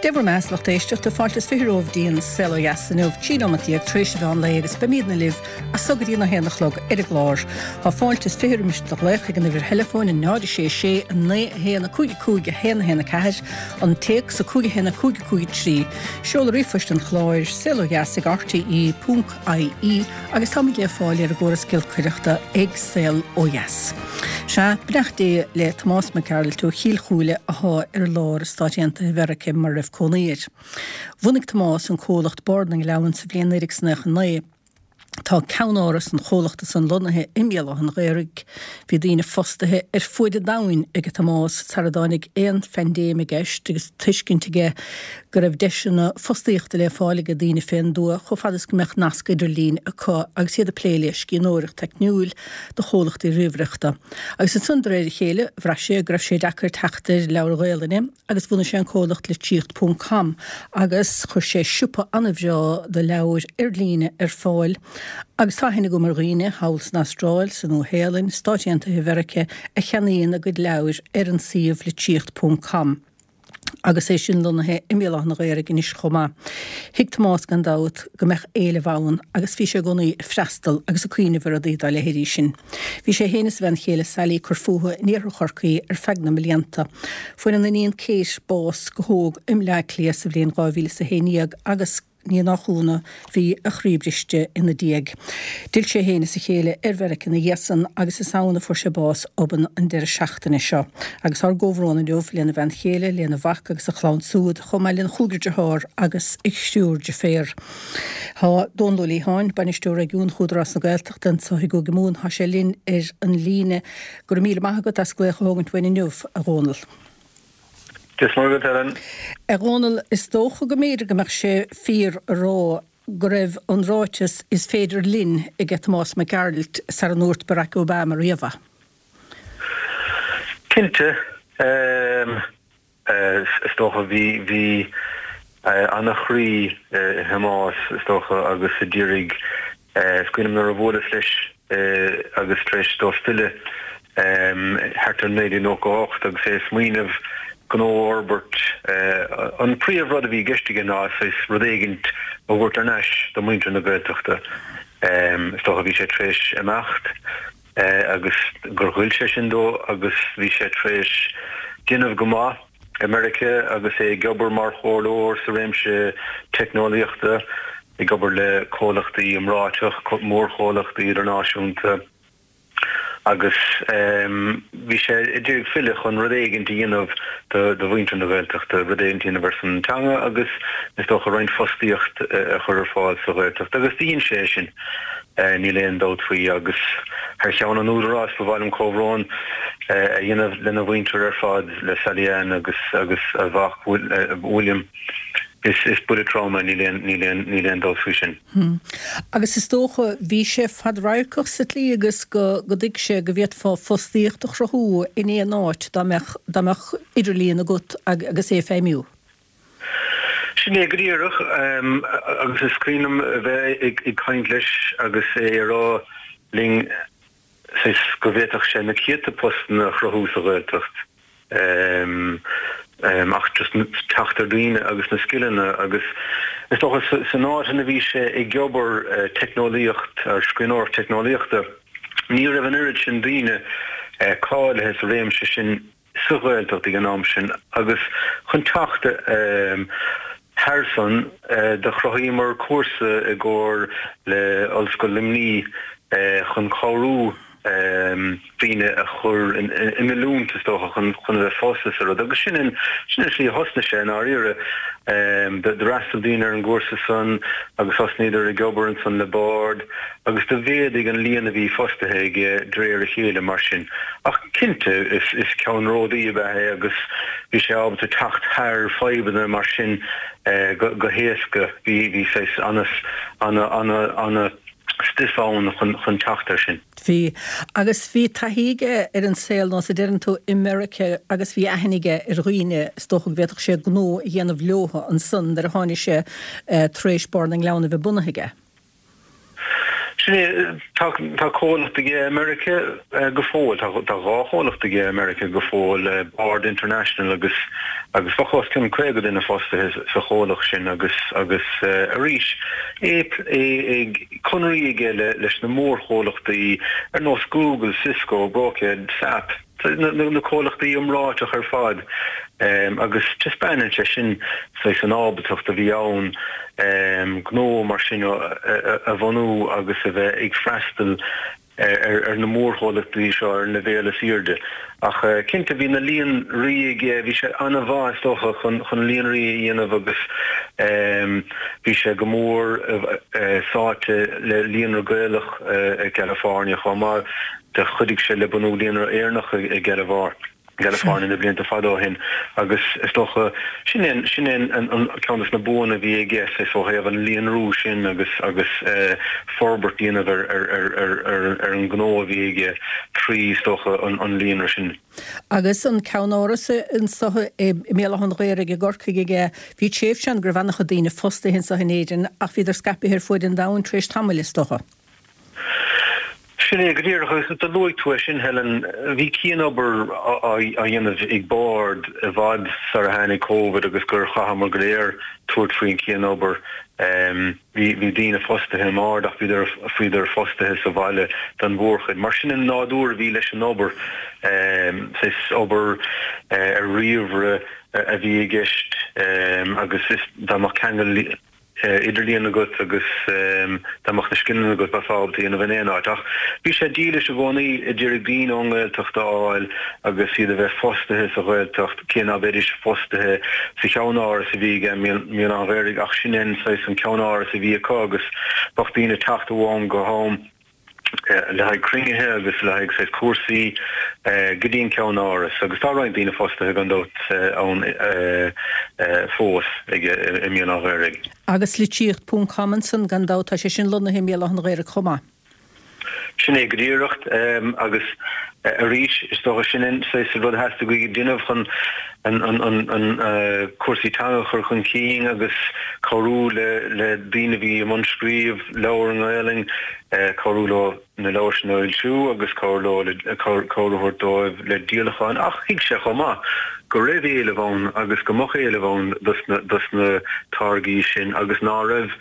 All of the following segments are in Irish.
Dé bhur mbeatha, a lucht éisteachta, fáilte is 20 romhaibh dtí an Saol Ó Dheas inniu, 13 nóimeat tar éis an mheán lae agus beimídne libh as so go dtí an 1 a chlog ar an gclár. Tá fáilte is 20 roimis do ghlaoch ag an uimhir theileafóin 0 6 6 9 1 5 5 1 1 4, an téacs 5 1 5 5 3, seoladh ríomhphoist an chláir, saolodheas ag rte ponc ie agus táimid le fáil ar an gcóras giolcaireachta ag Saol Ó Dheas. Sea, beannacht Dé le Tomás Mac Gearailt ó Chill Chúile athá ar lár i Stáit Aontaithe Mheirice mar a raibh cónaí air. Bhunaigh Tomás an comhlacht Bord na nGleann sa bhliain 1999. Tá ceannáras an chomhlachta san lonnaithe i mBéal Átha an Ghaorthaidh. Bhí daoine fostaithe ar fuaid an domhain ag Tomás sara dtáinig aon phaindéim i gceist agus tuiscint aige go raibh deiseanna fostaíochta le fáil ag daoine fén dtuath chomh fada is go mbeadh nasc idirlín acu agus iad ag plé le scríbhneoireacht teicniúil do chomhlachtaí ríomhaireachta. Agus ansan de réir a chéile bhraith sé go raibh sé deacair teacht ar leabhair Ghaelainne agus bhunaigh sé an comhlacht Litríocht Ponc Com agus chuir sé siopa an-bhreá do leabhair ar líne ar fáil agus tá aithne agam ar dhaoine thall san Astráil, sa Nua-Shéalainn, Stáit Aontaithe Mheirice a cheannaíonn a gcuid leabhair ar an suíomh Litríocht Ponc Com. agus é sin lonnaithe i mBéal Átha an Ghaorthaidh anois chomh maith. Thuig Tomás gan dabht go mbeadh éileamh ann agus bhí sé i gcónaí ag freastal agus ag cuimhneamh ar rudaí dá leithéidí sin. Bhí sé féin is a bhean chéile Sally ag cur fúthu in iarthar Chorcaí ar feadh na mblianta. Fuair an iníon Kate bás go hóg i mBleá Cliath sa bhliain 2011 agus, Ní nach ionadh, bhí a chroí briste ina diaidh. D'fhill sé féin is a chéile ar Mheiriceá ina dhiaidh san agus is ann a fuair sé bás obann an deireadh seachtaine seo. Agus ár gcomhbhrón inniu lena bhean chéile, lena mhac agus a chlann súd, chomh maith lena chúigear dearthár agus a thriúr deirféar. Tá Dónal Ó Liatháin, Bainisteoir Réigiúnach Údarás na Gaeltachta anseo i gCúige Mumhan, tá sé linn ar an líne. Go raibh míle maith agat as glaoch a thógaint uainn inniu, a Dhónaill. Dia is Muire dhuit, Helen. A Dhónaill, is dócha go mb'fhéidir go mbeadh sé fíor a rá go raibh an ráiteas 'is féidir linn' aige Tomás Mac Gearailt sara ndúirt Barack Obama riamh é. Cinnte. Is dócha bhí, bhí ana-chroí i Thomás, is dócha, agus a d'iarraidh, is cuimhin liom nuair a bhuaileas leis agus tar éis dó filleadh thart ar 1998 agus é ag smaoineamh gnó a fhorbairt. An príomh rud a bhí i gceist aige ná saghas rud éigint a thabhairt thar n-ais do mhuintir na Gaeltachta. Is dócha bhí sé tar éis imeacht agus gur ghoill sé sin dó agus bhí sé tar éis déanamh go maith i Meiriceá agus é ag obair mar chomhairleoir sa réimse teicneolaíochta, ag obair le comhlachtaí iomráiteach, mórchomhlachtaí idirnáisiúnta. agus bhí sé ag iarraidh filleadh chun rud éigint a dhéanamh do mhuintir na Gaeltachta, rud éigint a dhéanamh ar son an teanga agus is dócha roinnt fostaíocht a chur ar fáil sa Ghaeltacht agus do dhein sé é sin, níl aon dabht faoi agus thar cheann an Údaráis ba mhaith liom comhbhrón a dhéanamh lena mhuintir ar fad, le Sally Ann agus agus a mhac William. Is buille trom é, níl aon níl aon níl aon dabht faoi sin. Agus is dócha, bhí sé fadradharcach sa tslí agus go go dtuig sé go bhféadfá fostaíocht a chruthú in aon áit dá mbeadh dá mbeadh idirlíon agat agus é ag feidhmiú. Sin é go díreach, agus is cuimhin liom a bheith ag caint leis agus é ag rá linn saghas go bhféadfadh sé na céadta postanna a chruthú sa Ghaeltacht ach just teacht ar dhaoine agus na scileanna agus is dócha san áit ina bhí sé ag obair teicneolaíocht ar scríbhneoireacht teicneolaíochta ní raibh an oiread sin daoine cáilithe sa réimse sin sa Ghaeltacht ag an am sin agus chun teacht thar san do chruthaíomar cúrsa i gcomhar le Ollscoil Luimnigh chun cabhrú daoine a chur in oiliúint is dócha chun a bheith fostaithe sa rud agus sin an sin an slí a thosnaigh sé i ndáiríre. D'fhreastail daoine ar an gcúrsa san agus thosnaíodar ag obair ansan le Bord agus do mhéadaigh an líon a bhí fostaithe aige de réir a chéile mar sin. Ach cinnte, is ceannródaí ab ea é agus bhí sé ábalta teacht thar fadhbanna mar sin go héasca. Bhí bhí saghas ana ana ana stuif ann chun teacht air sin. Bhí. Agus bhí taithí aige ar an saol, nós a deireann tú, i Meiriceá agus bhí aithne aige ar dhaoine, is dócha go bhféadfadh sé gnó a dhéanamh leotha ansan nuair a tháinig sé tar éis Bord na nGleann a bheith bunaithe aige. Sin é, tá tá comhlacht aige i Meiriceá go fóill, tá tá 2 chomhlacht aige i Meiriceá go fóill, Bard International agus agus bheadh os cionn 50 duine fostaithe sa chomhlacht sin agus agus arís é é ag conraí aige le leis na mórchomhlachtaí ar nós Google, Cisco, Brocade, SAP. na comhlachtaí iomráiteach ar fad agus taispeánann sé sin saghas an ábaltacht a bhí ann gnó mar sin a bhunú agus a bheith ag freastal ar na mórchomhlachtaí seo ar an leibhéal is airde. Ach cinnte bhí na líonraí aige, bhí sé an-mhaith is dócha chun líonraí a dhéanamh agus bhí sé go mór sáite le Líonra Gaelach i gCalifornia chomh maith. Do chuidigh sé le bunú Líonra Éireannach i gCalifornia na blianta fada ó shin agus is dócha sin é sin é an ceann de na buanna a bhí aige saghas ó thaobh an líonrú sin agus agus forbairt a dhéanamh ar ar ar ar ar ar an ngnó a bhí aige trí is dócha an an líonra sin. Agus an ceannáras anso i mBéal Átha an Ghaorthaidh i gCorcaigh aige, bhí tréimhse ann go raibh an-chuid daoine fostaithe anso in Éirinn ach bhíodar scaipthe ar fuaid an domhain tar éis tamaill is dócha. Sin é go díreach, agus do luaigh tú é sin, Helen. Bhí cianobair á dhéanamh ag Bard i bhfad sar a tháinig Covid agus gur chaitheamar go léir tabhairt faoin chianobair. Bhí bhí daoine fostaithe i mBard ach bhíodar bhíodar fostaithe sa bhaile don mhórchuid. Mar sin an nádúr a bhí leis an obair, saghas obair ar ríomhaire a bhí i gceist agus is dá mbeadh ceangal idirlíon agat agus dá mbeadh na scileanna agat bheifeá ábalta a dhéanamh in aon áit. Ach bhí sé dílis i gcónaí a d'iarraidh daoine ón nGaeltacht a fháil agus iad a bheith fostaithe sa Ghaeltacht, cé ná beidís fostaithe sa cheannáras a bhí aige i mBéal Átha an Ghaorthaidh ach sin é an saghas an ceannáras a bhí acu agus bheadh daoine ag teacht ó am go ham. le haghaidh cruinnithe agus le haghaidh saghas cúrsaí go dtí an ceannáras agus tá roinnt daoine fostaithe gan dabht ann fós aige i mBéal Átha an Ghaorthaidh. Agus litríocht ponc com ansan gan dabht, tá sé sin lonnaithe i mBéal Átha an Ghaorthaidh chomh maith. Sin é go díreach agus arís is dócha sin an saghas rud a theastaigh uaidh a dhéanamh chun an cúrsaí teanga a chur chun cinn agus cabhrú le daoine a bhí i mbun scríobh leabhar i nGaelainn, cabhrú leo na leabhair sin a fhoilsiú agus cabhrú leo le cabhair a thabhairt dóibh le díolacháin. Ach thuig sé chomh maith go raibh éileamh ann agus go mbeadh éileamh ann dos na táirgí sin agus ná raibh,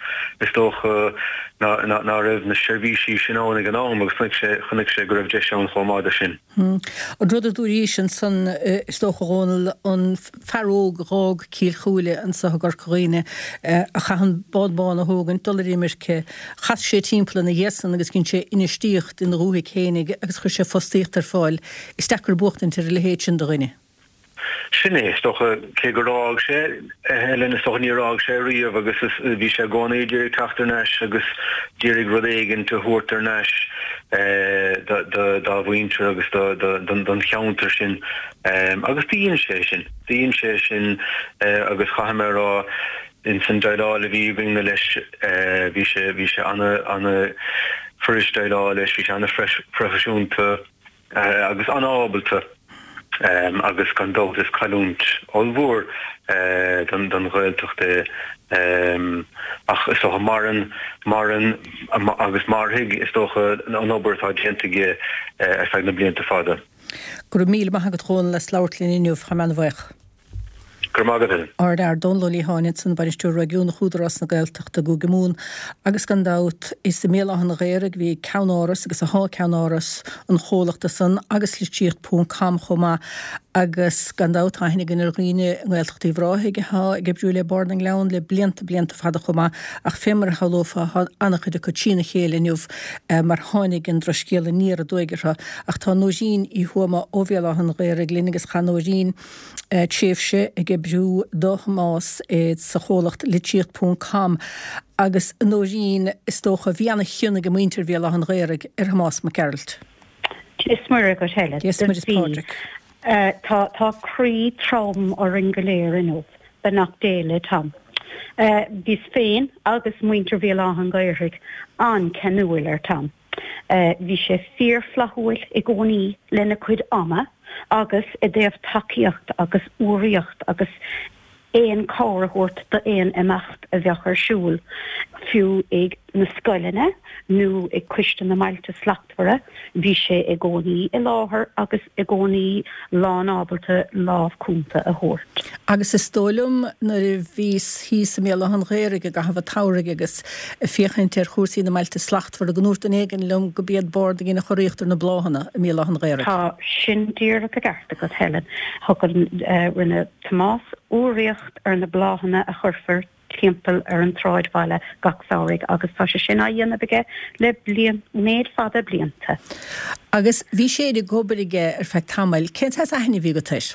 is dócha, ná raibh na seirbhísí sin ann ag an am agus chonaic sé, chonaic sé go raibh deis ann chomh maith do sin. An rud a dúraís ansan, is dócha, a Dhónaill, an fear óg a dh'fhág Cill Chúile anso i gCorca Dhuibhne, a chaith an bád bán a thógaint, dul ar imirce, chas sé timpeall ina dhiaidh san agus dhein sé infheistíocht ina dhúthaigh fhéinig agus chuir sé fostaíocht ar fáil. Is deacair buachtaint ar a leithéid sin de dhuine. Sin é, is dócha, cé gur fhág sé, Helen, is dócha níor fhág sé riamh agus bhí sé i gcónaí ag iarraidh teacht thar n-ais agus d'iarraidh rud éigint a thabhairt thar n-ais dá mhuintir agus don cheantar sin agus do dhein sé sin, do dhein sé sin agus chaithfidh mé a rá ins an déileáil a bhí againne leis bhí sé, bhí sé ana, ana fuirist déileáil leis, bhí sé ana phroifisiúnta. agus an-ábalta agus gan dabht is cailliúint ollmhór don Ghaeltacht é ach is dócha maireann, maireann agus mairfidh is dócha an obair atá déanta aige ar feadh na blianta fada. Go raibh míle maith agat a Dhónaill as labhairt linn inniu, tá mé an-bhuíoch. Go raibh maith agat, Helen. Ardfhear Dónal Ó Liatháin ansan, Bainisteoir Réigiúnach Údarás na Gaeltachta i gCúige Mumhan agus gan dabht is i mBéal Átha an Ghaorthaidh a bhí ceannáras agus athá ceannáras an chomhlachta san agus litríocht ponc com chomh maith agus gan dabht tá aithne againn ar dhaoine i nGaeltacht Uíbh Ráthaigh athá ag oibriú le Bord na nGleann le blianta blianta fada chomh maith ach fé mar a shamhlófá thá an-chuid acu trína chéile inniu mar tháinig an drochscéal aniar aduaidh orthu ach tá Nóirín Uí Thuama ó Bhéal Átha an Ghaorthaidh linn agus chaith Nóirín tréimhse ag oibriú do Thomás sa chomhlacht Litríocht Ponc Com agus a Nóirín, is dócha, bhí ana-chion ag muintir Bhéal Átha an Ghaorthaidh ar Thomás Mac Gearailt. Dia is Muire dhuit Helen. Dia is Muire is Pádraig. Tá tá croí trom orainn go léir inniu, beannacht Dé le Tom. Bhíos féin agus muintir Bhéal Átha an Ghaorthaidh an-cheanúil ar Tom. Bhí sé fíorfhlaithiúil i gcónaí lena chuid ama agus i dtaobh tacaíocht agus urraíocht agus aon chabhair a thabhairt d'aon imeacht a bheadh ar siúl, fiú ag. na scoileanna nó ag Coiste na mBailte Slachtmhara, bhí sé i gcónaí i láthair agus i gcónaí lán-ábalta lámh cúnta a thabhairt. Agus is dóigh liom nuair a bhíos thíos i mBéal Átha an Ghaorthaidh i gcaitheamh an tsamhraidh agus ag féachaint ar chúrsaí na mBailte Slachtmhara go ndúirt duine éigin liom go b'iad Bord a dhein an churaíocht ar na bláthanna i mBéal Átha an Ghaorthaidh. Tá sin díreach i gceart agat, Helen. Thug an, rinne Tomás urraíocht ar na bláthanna a chuirfear timpeall ar an tsráidbhaile gach samhraidh agus tá sé sin á dhéanamh aige le bliain, méid fada blianta. Agus bhí sé ag obair aige ar feadh tamaill. Cén saghas aithne a bhí agat air?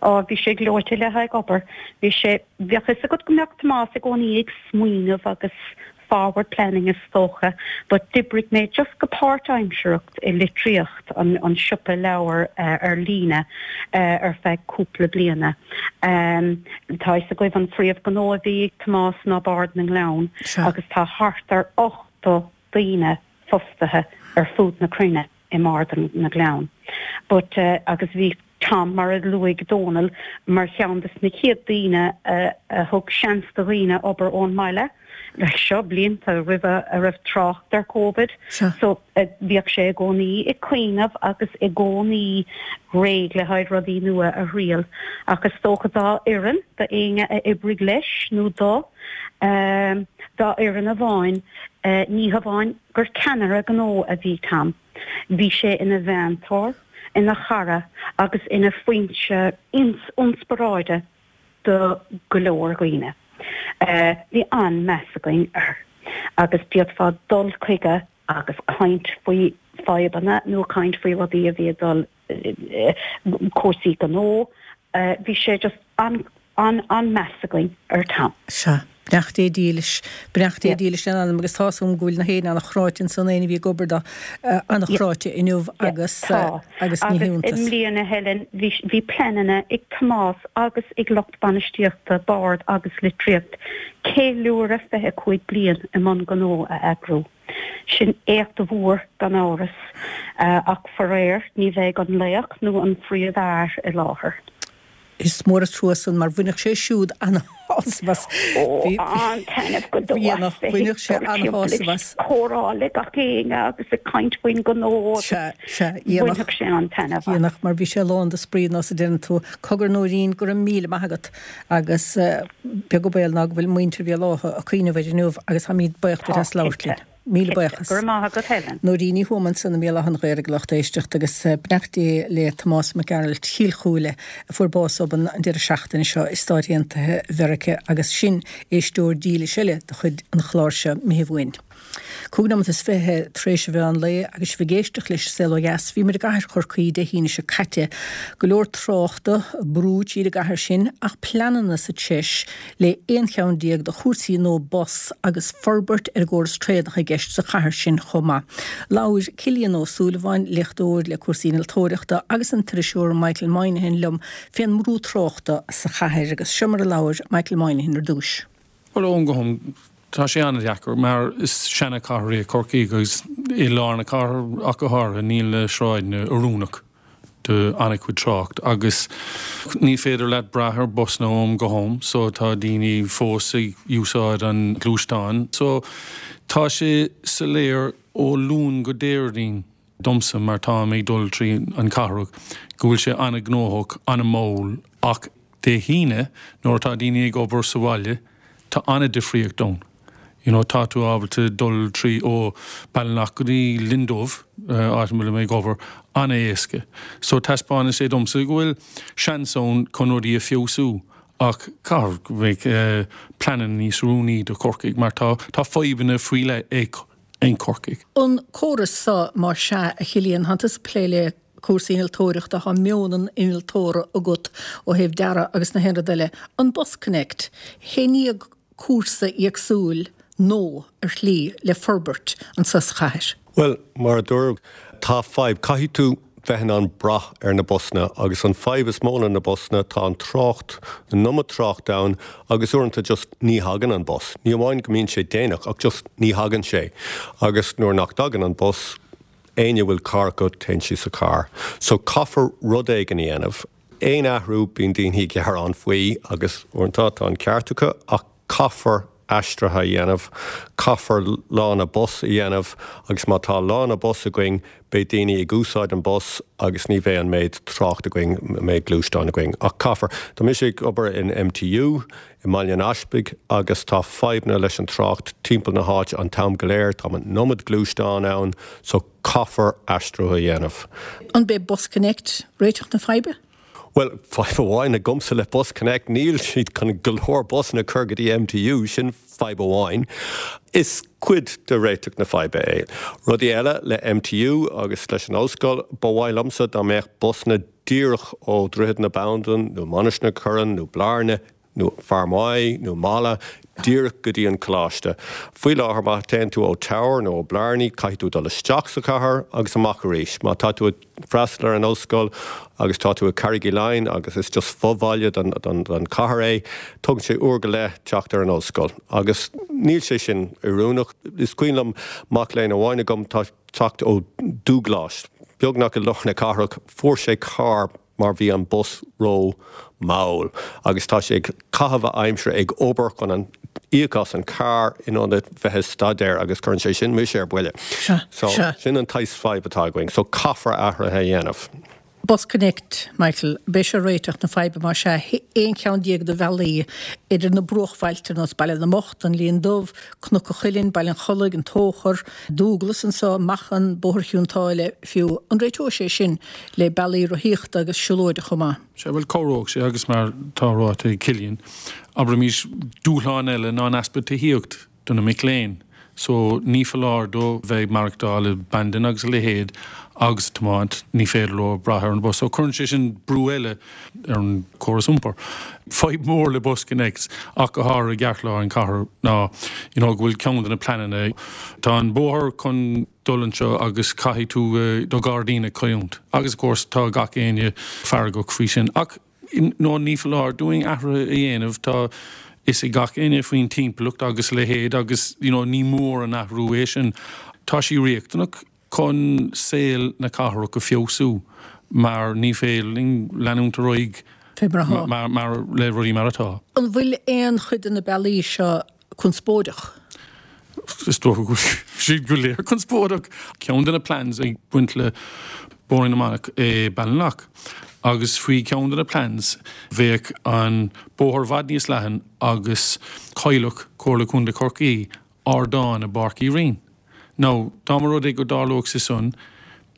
Á, bhí sé gleoite le haghaidh obair. Bhí sé, bheadh fhios agat go mbeadh Tomás i gcónaí ag smaoineamh agus forward planning is dócha, but d'oibrigh mé just go páirtaimsearach i Litríocht, an siopa leabhar ar líne, ar feadh cúpla bliana. Tá fhios agaibh an phríomhghnó a bhí ag Tomás ná Bord na nGleann agus tá thart ar 80 daoine fostaithe ar fud na cruinne. i mBord na nGleann. But agus bhí Tom, mar a luaigh Dónal, mar cheann des na chéad daoine a thug seans do dhaoine obair ón mbaile, like seo blianta roimhe a raibh trácht ar Covid. So bhíodh sé i gcónaí ag cuimhneamh agus i gcónaí réidh le haghaidh rudaí nua a thriail. Ach is dócha dá fhoireann, do éinne a oibrigh leis nó dó, dá fhoireann amháin, ní hamháin gur ceannaire gnó a bhí Tom. Bhí sé ina mheantóir, ina chara agus ina foinse ionspioráide do go leor dhaoine. Bhí an-meas againn air agus d'fhéadfá dul chuige agus caint faoi fadhbanna nó caint faoi rudaí a bhí ag dul cúrsaí gnó. Bhí sé just an, an, an-meas againn ar Tom. Sea. Beannacht Dé dílis. Beannacht Dé dílis lena anam agus tá's agam go bhfuil na héinne an-chráite ansan, éinne a bhí ag obair dó, an-chráite inniu agus, Tá. agus ní Agus i hiontas. mbliana, Helen, bhí, bhí pleananna ag Tomás agus ag lucht bainistíochta Bord agus Litríocht ceiliúradh 25 bliain i mbun gnó a eagrú. Sin éacht mhór gan amhras, ach faraor ní bheidh an laoch nó an phríomhfhear i láthair. Is mór an trua san mar bhainfeadh sé siúd an-shásamh as. Ó, an-taitneamh go deo as bheith ag dul timpeall ag comhrá le gach éinne agus ag caint faoin ngnó agus bhainfeadh sé an-taitneamh as. Dhéanfadh, mar bhí sé lán de spraoi nós a deireann tú. Cogar Nóirín, go raibh míle maith agat agus beag an baol ná go bhfuil muintir Bhéal Átha ag cuimhneamh air inniu agus táimid buíoch duit as labhairt linn. Míle buíochas. Go raibh maith agat Helen. Nóirín Ní Thuama ansan i mBéal Átha an Ghaorthaidh a lucht éisteachta agus beannacht Dé le Tomás Mac Gearailt Chill Chúile a fuair bás obann an deireadh seachtaine seo i Stáit Aontaithe Mheiriceá agus sin éisteoir dílis eile de chuid an chláir seo imithe uainn. 25 nóimeat tar éis an mheán lae agus sibh ag éisteacht leis An Saol Ó Dheas. Bhí muid i gcathair Chorcaí Dé hAoine seo caite. Go leor tráchta, brú tríd an gcathair sin ach pleananna sa treis le 11 cheann de chúrsaí nua bus agus forbairt ar an gcóras traenach i gceist sa chathair sin chomh maith. Labhair Cillian Ó Súilleabháin, léachtóir le cúrsaí innealtóireachta agus an t-iriseoir Michael Moynihan liom fén mbrú tráchta sa chathair agus seo mar a labhair Michael Moynihan ar dtúis. Bhuel, ó am go ham, tá sé an-deacair mar is seana-chathair í Corcaigh agus i lár na cathrach ach go háirithe níl na sráideanna oiriúnach do an-chuid trácht agus ní féidir leat brath ar busanna ó am go ham so tá daoine fós ag úsáid an gluaisteáin. So tá sé soiléir ó Luan go Déardaoin. domsa mar táim ag dul trí an cathrach go bhfuil sé an-ghnóthach, an-mhall ach Dé hAoine nuair atá daoine ag obair sa bhaile tá an-difríocht ann. You know tá tú ábalta dul trí ó Ballinlough go dtí Linn Dubh, áit a bhfuilim ag obair, an-éasca. So taispeánann sé domsa go bhfuil seans ann chun rudaí a feabhsú ach caithfidh go mbeidh pleananna níos oiriúnaí do Chorcaigh mar tá tá fadhbanna faoi leith ag in Corcaigh. An córas so, más ea, a Chillian, thánn tusa ag plé le cúrsaí innealtóireachta, thá meon an innealtóra agat ó thaobh dearadh agus na haon rud eile. An BusConnect, hé i ndiaidh cúrsa éagsúil nó ar shlí le forbairt anso sa chathair? Bhuel, mar a dúradh, tá fadhb. Caithfidh tú bheith in ann brath ar na busanna agus an fadhb is mó le na busanna, tá an trácht, an iomad trácht ann agus uaireanta just ní thagann an bus. Ní amháin go mbíonn sé déanach ach just ní thagann sé agus nuair nach dtagann an bus, éinne a bhfuil carr acu, téann siad sa charr. So caithfear rud éigin a dhéanamh. Aon athrú, bíonn daoine ag gearán faoi agus uaireanta tá an ceart acu ach caithfear. aistrithe a dhéanamh, caithfear lána bus a dhéanamh agus má tá lána bus againn beidh daoine ag úsáid an bus agus ní bheidh an méid trácht againn, an méid gluaisteán againn. Ach caithfear. Tá mise ag obair in MTU i mBaile an Easpaig agus tá fadhbanna leis an trácht timpeall na háite an t-am go léir, tá an iomad gluaisteán ann so caithfear aistriú a dhéanamh. An b'é BusConnect réiteach na faidhbe? Bhuel, fadhb amháin agamsa le BusConnect, níl siad chun go leor busanna a chur go dtí MTU, sin fadhb amháin. Is cuid de réiteach na faidhbe é. Rudaí eile le MTU agus leis an ollscoil, ba mhaith liomsa dá mbeadh busanna díreach ó Dhroichead na Bandan nó Mainistir na Corann nó Blarney nó Fear Maí nó Mala díreach go dtí an coláiste. Faoi láthair má théann tú ó Tower nó ó Blarney caithfidh tú dul isteach sa chathair agus amach arís. Má tá tú ag freastal ar an ollscoil agus tá tú i Carraig Uí Leighin agus is just fo-bhaile den chathair é, tógann sé uair go leith teacht ar an ollscoil. Agus níl sé sin oiriúnach. Is cuimhin liom mac léinn amháin agam, tá teacht ó Dúghlais, beagnach i lár na cathrach, fuair sé carr mar bhí an bus ró mall agus tá sé ag caitheamh a aimsire ag obair chun an íoc as an carr in ionad bheith ag staidéar agus cuireann sé sin mise ar buile. So sin an tsaghas fadhb atá againn. So caithfear athruithe a dhéanamh. BusConnect, Michael, b'é seo réiteach na faidhbe más ea, 11 cheann de bhealaí idir na bruachbhailte ar nós Baile na mBocht, An Linn Dubh, Cnoc an Chuilinn, Baile an Chollaigh, An Tóchar, Dúglas anseo, Machan, Bóthar Chionn tSáile fiú. An réiteoidh sé sin le bealaí rothaíochta agus siúlóide chomh maith? Sea, bhuel, cabhróidh sé agus mar tá ráite ag Cillian, abraimis, dúshlán eile ná an easpa tithíocht do na mic léinn. So, ní foláir dóibh bheith ag maireachtáil i Bandon agus a leithéid agus tiomáint, ní féidir leo brath ar an bus. So, cuireann sé sin brú eile ar an córas iompair. Fadhb mhór le BusConnects ach go háirithe i gceartlár an chathair ná you know go bhfuil ceann de na pleananna, tá an bóthar chun dul anseo agus caithfidh tú do ghairdín a chailliúint agus of course tá gach éinne feargach faoi sin ach no ní foláir dúinn athruithe a dhéanamh, tá fhios ag gach éinne faoin timpeallacht agus a leithéid agus you know ní mór an athrú é sin. Tá sí riachtanach. chun saol na cathrach a feabhsú mar ní féidir linn leanúint ar aghaidh mar le rudaí mar atá. An bhfuil aon chuid de na bealaí seo conspóideach? Is dócha go bhfuil siad go léir conspóideach. Ceann de na plans ag baint le Bóithrín na Manach é Ballinlough agus faoi cheann de na plans bheadh an bóthar i bhfad níos leathan agus chaillfeadh Comhairle Contae Chorcaí ardán i bPáirc Uí Rinn. Now, dá mba rud é go dtarlódh sé san,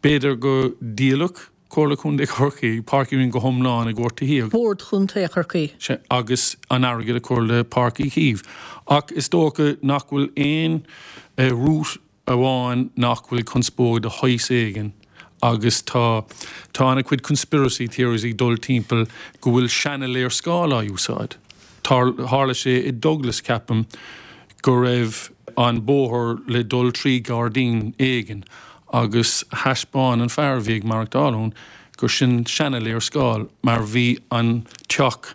b'fhéidir go ndíolfadh Comhairle Contae Chorcaí Páirc Uí Rinn go hiomlán i gcomhair tithíocht. Bord Chontae Chorcaí. Sea, agus an airgead a chur le Páirc Uí Chaoimh. Ach is dócha nach bhfuil aon route amháin nach bhfuil conspóid de shaghas éigin agus tá tá ana-chuid conspiracy theories ag dul timpeall go bhfuil seana-léarscáil á úsáid. Tharla sé i Douglas, ceapaim, go raibh an bóthar le dul trí ghairdín éigin agus thaispeáin an fear a bhí ag maireachtáil ann gur sin seana-léarscáil mar bhí an teach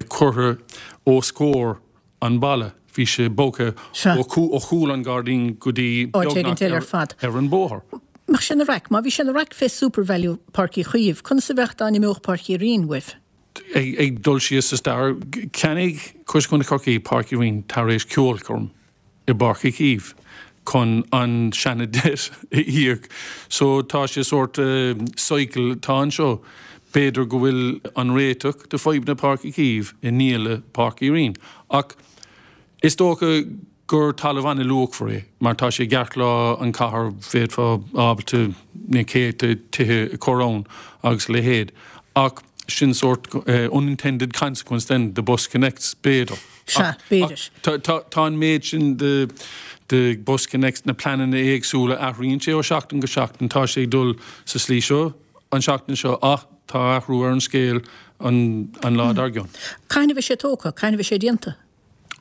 curtha os comhair an bhalla. Bhí sé bogtha ó chúl an ghairdín go dtí áit éigin eile ar fad. ar an bóthar. Mbeadh sé ina raic? Má bhí sé ina raic fé SuperValu Páirc Uí Chaoimh, conas a bheadh dá n-imeodh Páirc Uí Rinn uaibh? Ag dul siar sa stair, cheannaigh Comhairle Contae Chorcaí Páirc Uí Rinn tar éis ceolchoirm i bPáirc Uí Chaoimh chun an seana debt a íoc. So tá sé sórt cycle atá anseo. B'fhéidir go bhfuil an réiteach do fadhbanna Páirc Uí Chaoimh i ndíoladh Páirc Uí Rinn. Ach is dócha gur talamh an-luachmhar é mar tá sé i gceartlár an chathair, bhféadfá ábalta na céadta tithe a chur ann agus a leithéid. Ach sin sórt unintended consequence then de BusConnects, b'fhéidir. Sea, b'fhéidir. Tá an méid sin de BusConnects, na pleananna éagsúla, athraíonn sé ó sheachtain go seachtain, tá sé ag dul sa slí seo an seachtain seo ach tá athrú ar an scéal an lá dár gcionn. Cathain a bheidh sé tógtha? Cathain a bheidh sé déanta?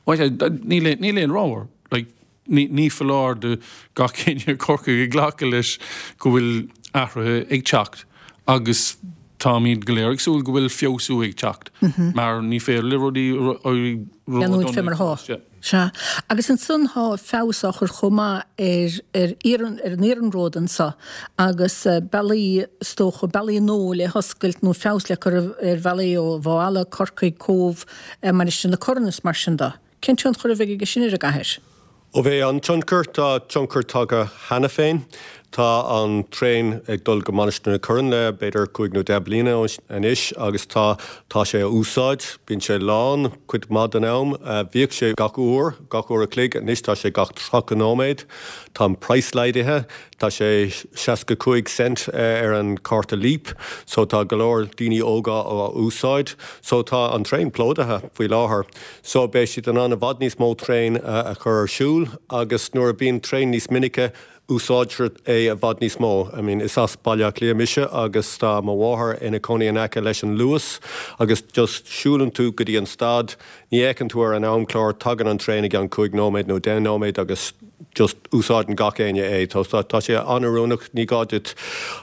Bhuel, níl níl aon rogha. Like, ní ní foláir do gach éinne i gCorcaigh ag glacadh leis go bhfuil athruithe ag teacht agus táimid go léir ag súil go bhfuil feabhsú ag teacht mar ní féidir le rudaí Leanúint fé mar atá. Sea. Agus ansan thá feabhas á chur chomh maith ar ar iarrann ar an iarnród anso agus bealaí is dócha, bealaí nua le hoscailt nó feabhas le cur ar bhealaí ó Mhaigh Eala, Corcaigh, Cóbh, Mainistir na Corann is mar sin de. Cén tionchar a bheidh aige sin ar an gcathair? Ó bheidh an-tionchar, tá tionchar tagtha cheana féin. Tá an traein ag dul go Mainistir na Corann le b'fhéidir cúig nó deich bliana anois agus tá tá sé á úsáid. Bíonn sé lán cuid mhaith den am. Bhíodh sé gach uair, gach uair a chloig, anois tá sé gach 30 nóiméad. Tá an praghas laghdaithe, tá sé 65 cent ar an cárta Leap so tá go leor daoine óga á úsáid. So tá an traein plódaithe faoi láthair. So beidh siad in ann i bhfad níos mó traein a chur ar siúl agus nuair a bíonn traein níos minice úsáidtear é i bhfad níos mó. I mean is as Baile Átha Cliath mise agus tá mo mháthair ina cónaí in aice leis an Luas agus just siúlann tú go dtí an stad, ní fhéachann tú ar an amchlár, tagann an traein i gceann cúig nóiméad nó deich nóiméad agus just úsáideann gach éinne é. Tá tá sé an-oiriúnach, ní gá duit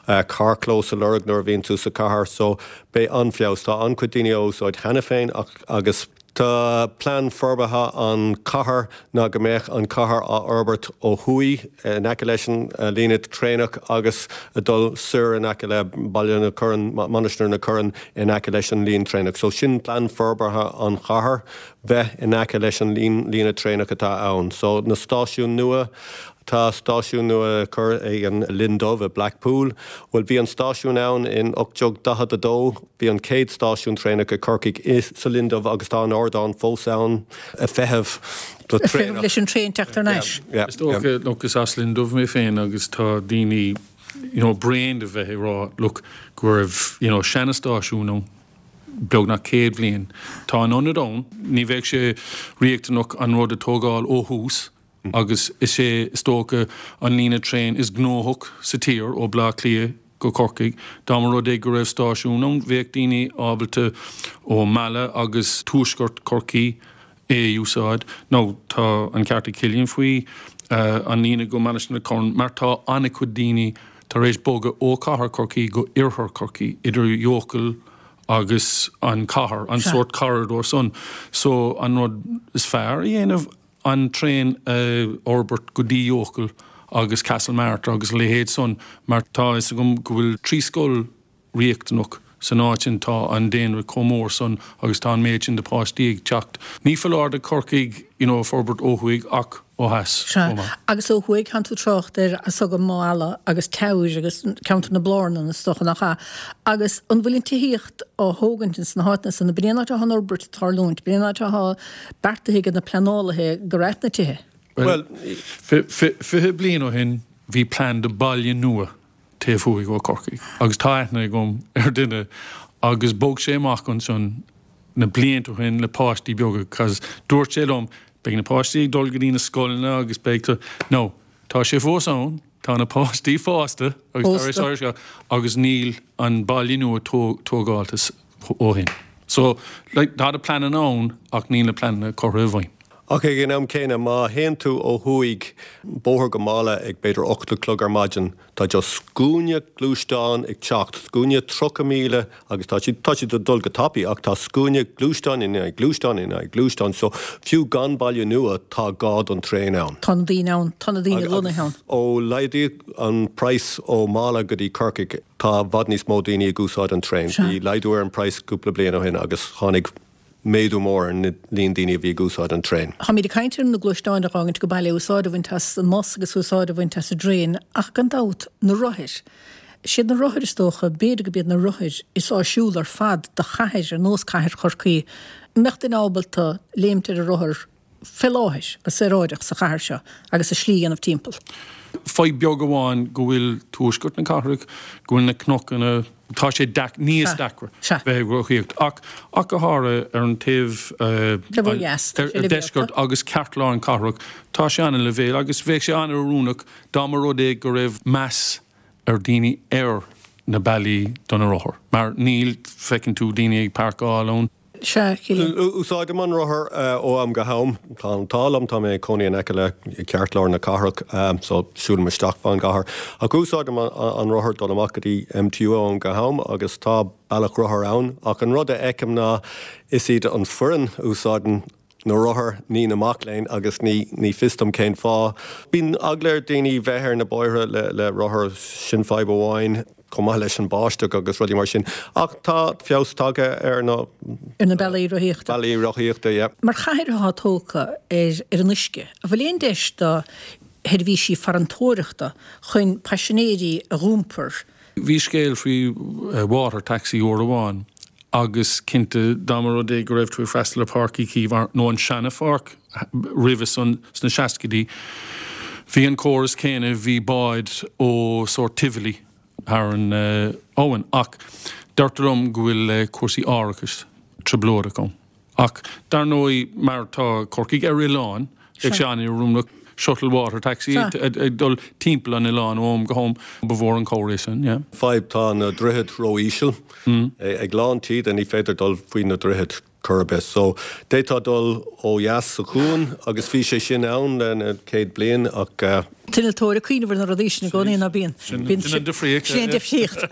carrchlós a lorg nuair a bhíonn tú sa chathair so beidh an-fheabhas. Tá an-chuid daoine á úsáid cheana féin ach agus tá plean forbartha an chathair ná go mbeadh an chathair á fhorbairt ó thuaidh in aice leis an líne traenach agus ag dul soir in aice le Baile na Corann, Mainistir na Corann in aice leis an líon traenach. So sin plean forbartha an chathair, bheith in aice leis an líne traenach atá ann. So na stáisiúin nua, Tá stáisiún nua curtha ag an Linn Dubh i Blackpool. Bhuel, bhí an stáisiún ann in 1842. Bhí an chéad stáisiún traenach i Corcaigh i sa Linn Dubh agus tá an ardán fós ann ag feitheamh do Ag feitheamh leis an traein teacht thar n-ais. Yeah. Is dócha, look, is as Linn Dubh mé féin agus tá daoine, you know, bréan de bheith ag rá, look, go raibh, you know, seana-stáisiún ann beagnach 100 bhliain. Tá an ionad ann, ní bheadh sé riachtanach an rud a tógáil ó thús, agus is é is dócha an líne traein is gnóthach sa tír ó Bleá Cliath go Corcaigh. Dá mba rud é go raibh stáisiún ann bheadh daoine ábalta ó Mala agus tuaisceart Chorcaí é a úsáid. Now tá an ceart ag Cillian faoi an líne go Mainistir na Corann mar tá an-chuid daoine tar éis bogadh ó chathair Chorcaí go oirthear Chorcaí, idir Eochaill agus an chathair, an sórt corridor san. So an rud is fearr a dhéanamh, an traein a fhorbairt go dtí Eochaill agus Castlemartyr agus a leithéid san mar tá fhios agam go bhfuil 3 scoil riachtanach san áit sin, tá an daonra chomh mór san agus tá an méid sin de páistí ag teacht. Ní foláir do Chorcaigh you know forbairt ó thuaidh ach ó theas chomh maith. Agus ó thuaidh, tánn tú ag trácht ar as agam Maigh Ealla agus Teamhair agus ceantar na Blárnan is dócha nach ea? Agus an bhfuil an tithíocht á thógaint ins na háiteanna san? Ab in é an áit atá an fhorbairt ag tarlúint? Ab in é an áit atá beartaithe ag na pleanálaithe go raibh na tithe. Bhuel, 20 bliain ó shin bhí plean do baile nua taobh thuaidh ó Corcaigh agus tá aithne agam ar duine agus bhog sé amach ansin na blianta ó shin le páistí beaga 'cause dúirt sé liom beidh na páistí ag dul go dtí na scoileanna agus beidh tú, no, tá sé fós ann, tá na páistí fásta agus tar éis agus níl an baile nua tógálta ó shin. So, like, tá na pleananna ann ach níl na pleananna curtha i bhfeidhm. Ach ag an am céanna, má théann tú ó thuaidh bóthar go Mala ag b'fhéidir 8 a chlog ar maidin, tá just scuaine gluaisteán ag teacht, scuaine 30,000 agus tá siad, tá siad ag dul go tapaidh ach tá scuaine gluaisteán i ndiaidh gluaisteán i ndiaidh gluaisteán so fiú gan baile nua tá gá don traein ann. Tá na daoine ann, tá na daoine lonnaithe ann. Ó laghdaíodh an praghas ó Mala go dtí Corcaigh, Tá i bhfad níos mó daoine ag úsáid an traein. Bhí laghdú ar an praghas cúpla bliain ó shin agus tháinig méadú mór ar an líon daoine a bhí ag úsáid an traein. Táimid ag caint ar na gluaisteáin a dh'fhágaint go baile, úsáid a bhaint as an mbus agus úsáid a bhaint as an dtraein ach gan dabht, na rothair. Siad na rothair is dócha, b'fhéidir go b'iad na rothair is áisiúla ar fad do chathair ar nós cathair Chorcaí. An mbeadh duine ábalta léimt ar a rothar fé láthair, go saoráideach sa chathair seo agus a slí a dhéanamh timpeall. Fadhb beag amháin go bhfuil tuaisceart na cathrach, go bhfuil na cnocanna, tá sé níos deacra bheith ag rothaíocht ach ach go háirithe ar an taobh ar deisceart agus ceartlár an cathrach, tá sé an-leibhéal agus bheadh sé an-oiriúnach dá mba rud é go raibh meas ar daoine ar na bealaí do na rothair mar níl, feiceann tú daoine ag páirceáil ann. Sea, Cillian. Úsáidim an rothar ó am go ham. Tá an t-ádh liom, tá mé ag cónaí in aice le ceartlár na cathrach, so siúlaim isteach fán gcathair. Ach úsáidim an rothar dul amach go dtí MTU ó am go ham agus tá bealach rothar ann. Ach an rud a fheicim ná is iad an foireann a úsáideann na rothair, ní na mac léinn agus ní ní fios dom cén fáth. Bíonn eagla ar daoine bheith ar na bóithre le le rothar, sin fadhb amháin. Chomh maith leis an báisteach agus rudaí mar sin. Ach tá feabhas tagtha ar na. Ar na bealaí rothaíochta. Bealaí rothaíochta, yeah. Mar chathair atá tógtha ar ar an uisce, an bhfuil aon deis do sheirbhísí farantóireachta chun paisinéirí a dh'iompar? Bhí scéal faoi water taxi uair amháin agus cinnte dá mba rud é go raibh tú ag freastal ar Pháirc Uí Chaoimh nó an seana pháirc roimhe san sna seascaidí bhí an córas céanna, bhí báid ó sórt Tivoli thar an abhainn ach deirtear liom go bhfuil cúrsaí árachais trioblóideach ann. Ach dar ndóigh, mar tá Corcaigh ar oileán, bheadh sé an-oiriúnach shuttle water taxi ag dul timpeall an oileáin ó am go ham. Ba mhór an cabhair é sin, yeah. Fadhb, tá na droichid ró-íseal. Ag lán taoide ní féidir dul faoi na droichid chor ar bith. So, d'fhéadfá dul ó dheas sa chuan agus bhí sé sin ann le na céad bliain ach. T-innealtóir ag cuimhneamh ar na rudaí sin i gcónaí, ná bíonn? Sin an difríocht. Sin an difríocht.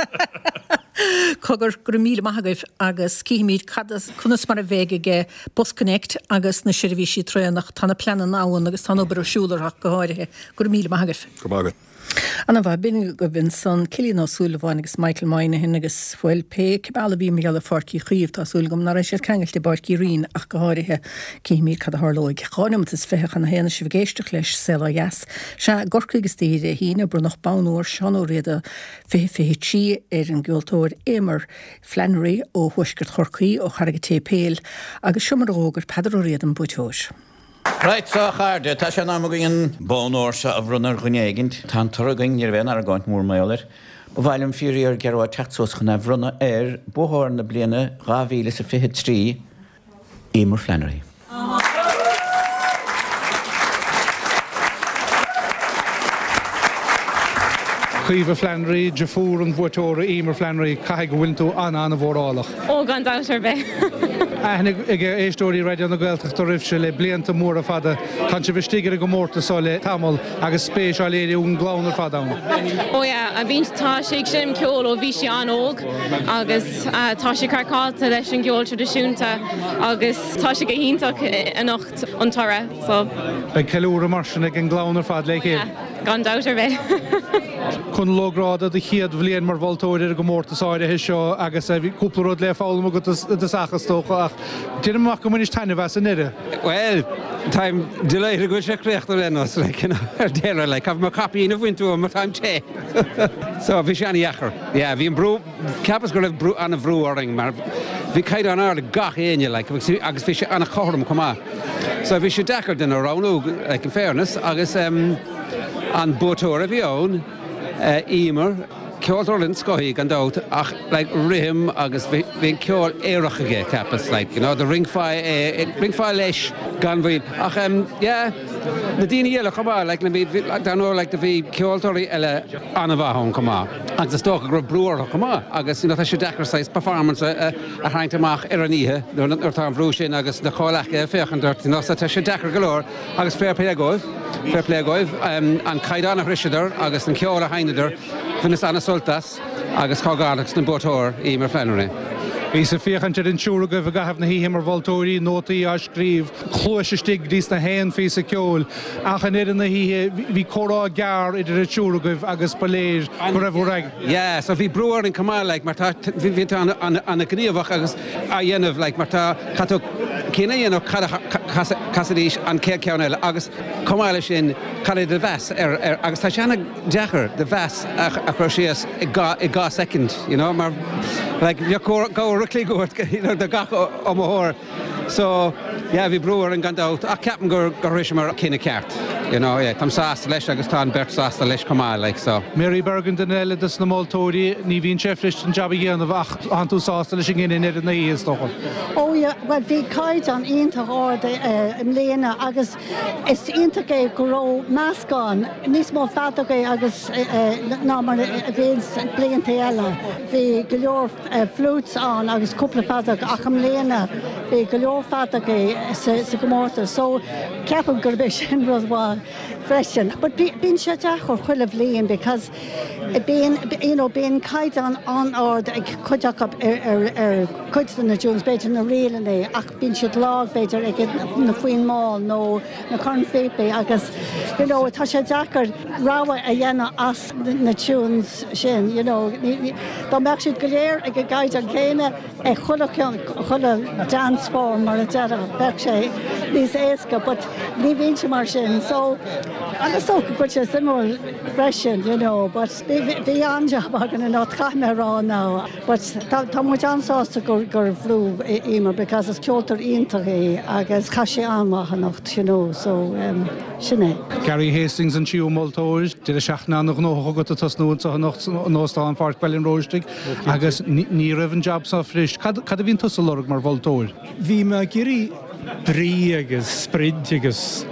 Cogar, go raibh míle maith agaibh agus cífimid cad as, conas mar a bheidh ag BusConnects agus na seirbhísí traenach. Tá na pleananna ann agus tá an obair ar siúl orthu ach go háirithe. Go raibh míle maith agaibh. Go raibh maith agat. Ana mhaith. B'in agaibh ansan Cillian Ó Súilleabháin agus Michael Moynihan agus, bhuel, pé bealach a bhí mar gheall ar Pháirc Uí Chaoimh, tá súil agam nach raibh siad ceangailte i bPáirc Uí Rinn ach go háirithe. Cífimid cad a tharlóidh. 2 neomat is 20 chun a haon is sibh ag éisteacht leis Saol Ó Dheas. Sea, i gCorcaigh istoíche Dé hAoine, bronnadh Bonn Ór Seán Ó Riada 2023 ar an gceoltóir Eimear Flannery ó thuaisceart Chorcaí, ó Charraig an tSéipéil, agus seo mar a d'fhógair Peadar Ó Riada an buaiteoir. Right so a chairde, tá sé in am againn an bonn ór seo a bhronnadh ar dhuine éigint. Tá an toradh againn, ní raibh aon argóint mhór mar gheall air. Ba mhaith liom fíor-fhíor Gearóid teacht suas chun é a bhronnadh ar buaiteoir na bliana 2023, Eimear Flannery. Caoimhe Flannery, deirfiúr an bhuaiteora Eimear Flannery, caithfidh go bhfuileann tú an-an-mhórálach. Ó, gan dabht ar bith. Aithne ag éisteoirí Raidió na Gaeltachta oraibhse le blianta móra fada. Tánn sibh istigh ar an gcomórtas seo le tamall agus spéis á léiriú ag an gclann ar fad ann. Ó yeah, bíonn, tá sí ag seinm ceoil ó bhí sí an-óg agus tá sí craiceáilte leis an gceol traidisiúnta agus tá sé go hiontach anocht an toradh so. Beidh ceiliúradh mar sin ag an gclann ar fad le chéile. Gan dabht ar bith. Conall Ó Gráda, do chéad bhliain mar mholtóir ar an gcomórtas áirithe seo agus bhí cúpla rud le foghlaim agat i dtosach is dócha ach deinim amach go mbainis taitneamh as i ndeireadh. Bhuel, táim delighted go bhfuil sé críochnaithe ar aon nós, like, you know, ar deireadh, like, caithfidh mé caipín a bhaint uaim mar táim te. So, bhí sé an-dheacair. Yeah, bhí an brú, Cheapas go raibh brú, an-bhrú orainn mar bhí caighdeán ard ag gach éinne like agus bhí sé an-chothrom chomh maith. So bhí sé deacair duine a roghnú like in fairness agus em an buaiteoir a bhí ann eh Eimear, ceoltóir den scoth í gan dabht ach like rithim agus bhí bhí an ceol aerach aige cheapas like you know do rinceofá é rinceofá leis gan mhoill ach em yeah na daoine eile chomh maith like na bhí bhí dar ndóigh like do bhí ceoltóirí eile an-mhaith ann chomh maith. Agus is dócha go raibh brú orthu chomh maith agus you know tá sé deacair saghas performance a tharraingt amach ar an oíche nuair atá an bhrú sin agus na comhleacaithe ag féachaint ort you know so tá sé deacair go leor agus fair play dhóibh, fair play dhóibh an caighdeán a shroiseadar agus an ceol a sheinneadar, bhaineas an-sult as agus comhghairdeachas don buaiteoir, Eimear Flannery. Bhíos ag féachaint ar an triúr agaibh i gcaitheamh na hoíche mar mholtóirí, nótaí á scríobh, cluais istigh go dtí sna haon phíosa ceoil. Ach i ndeireadh na hoíche, bhí comhrá gearr idir an triúr agaibh agus ba léir go raibh bhur. Yeah, so bhí brú orainn chomh maith, like, mar tá, bhí tú an-ghníomhach agus á dhéanamh, like, mar tá, caithfidh tú cinneadh a dhéanamh cad a chasfaidís an chéad cheann eile agus chomh maith leis sin, cad é do mheas ar, ar, agus tá sé an-deacair do mheas a chur síos i dha, i dha soicind, you know, mar, like, bheadh uair a chloig uait, you know, do gach iomaitheoir. So, yeah, bhí brú orainn gan dabht, ach ceapaim gur gur shroiseamar cinneadh ceart, you know, yeah, táim sásta leis agus tá an bheirt sásta leis chomh maith, like, so. Mary Bergin, duine eile dos na moltóirí, ní bhíonn sé fuirist an jab a dhéanamh ach tánn tú sásta leis an gcinneadh i ndeireadh na hoíche, is dócha. Oh yeah, bhuel bhí caighdeán iontach ard i mbliana agus is iontach é go raibh meascán, níos mó feadógaí agus ná mar a bhíonn blianta eile. Bhí go leor. flutes ann agus cúpla feadóg ach i mbliana bhí go leor feadógaí sa gcomórtas so ceapaim gurb é sin rud mhaith. freisin. But bíonn sé deacair chuile bhliain because bíonn, you know, bíonn caighdeán an-ard ag cuid acu ar, ar cuid de na tunes, b'fhéidir na ríleanna ach bíonn siad lag b'fhéidir ag na foinn mall nó na cornphíopaí agus, you know, tá sé deacair rogha a dhéanamh as na tunes sin, you know. Dá mbeadh siad go léir ag an gcaighdeán céanna, ag chuile cheann, chuile dance form mar a déarfá, bheadh sé níos éasca but ní bhíonn sé mar sin so agus is dócha go bhfuil sé suimiúil freisin you know but bhí an-jab againn anocht caithfidh mé a rá now but tá tá muid an-sásta gur gur bhuaigh Emer because is ceoltóir iontach í agus chaith sí an-mhaith anocht you know so um, Sin é. Gary Hastings an tríú moltóir. Deireadh seachtaine an-ghnóthach agat ag tosnú anseo anocht in Óstán Pháirc Bhaile an Róistigh agus ní raibh an jab seo fuirist. Cad a bhíonn tusa ag lorg mar mholtóir? Bhí mé ag iarraidh brí agus sprid agus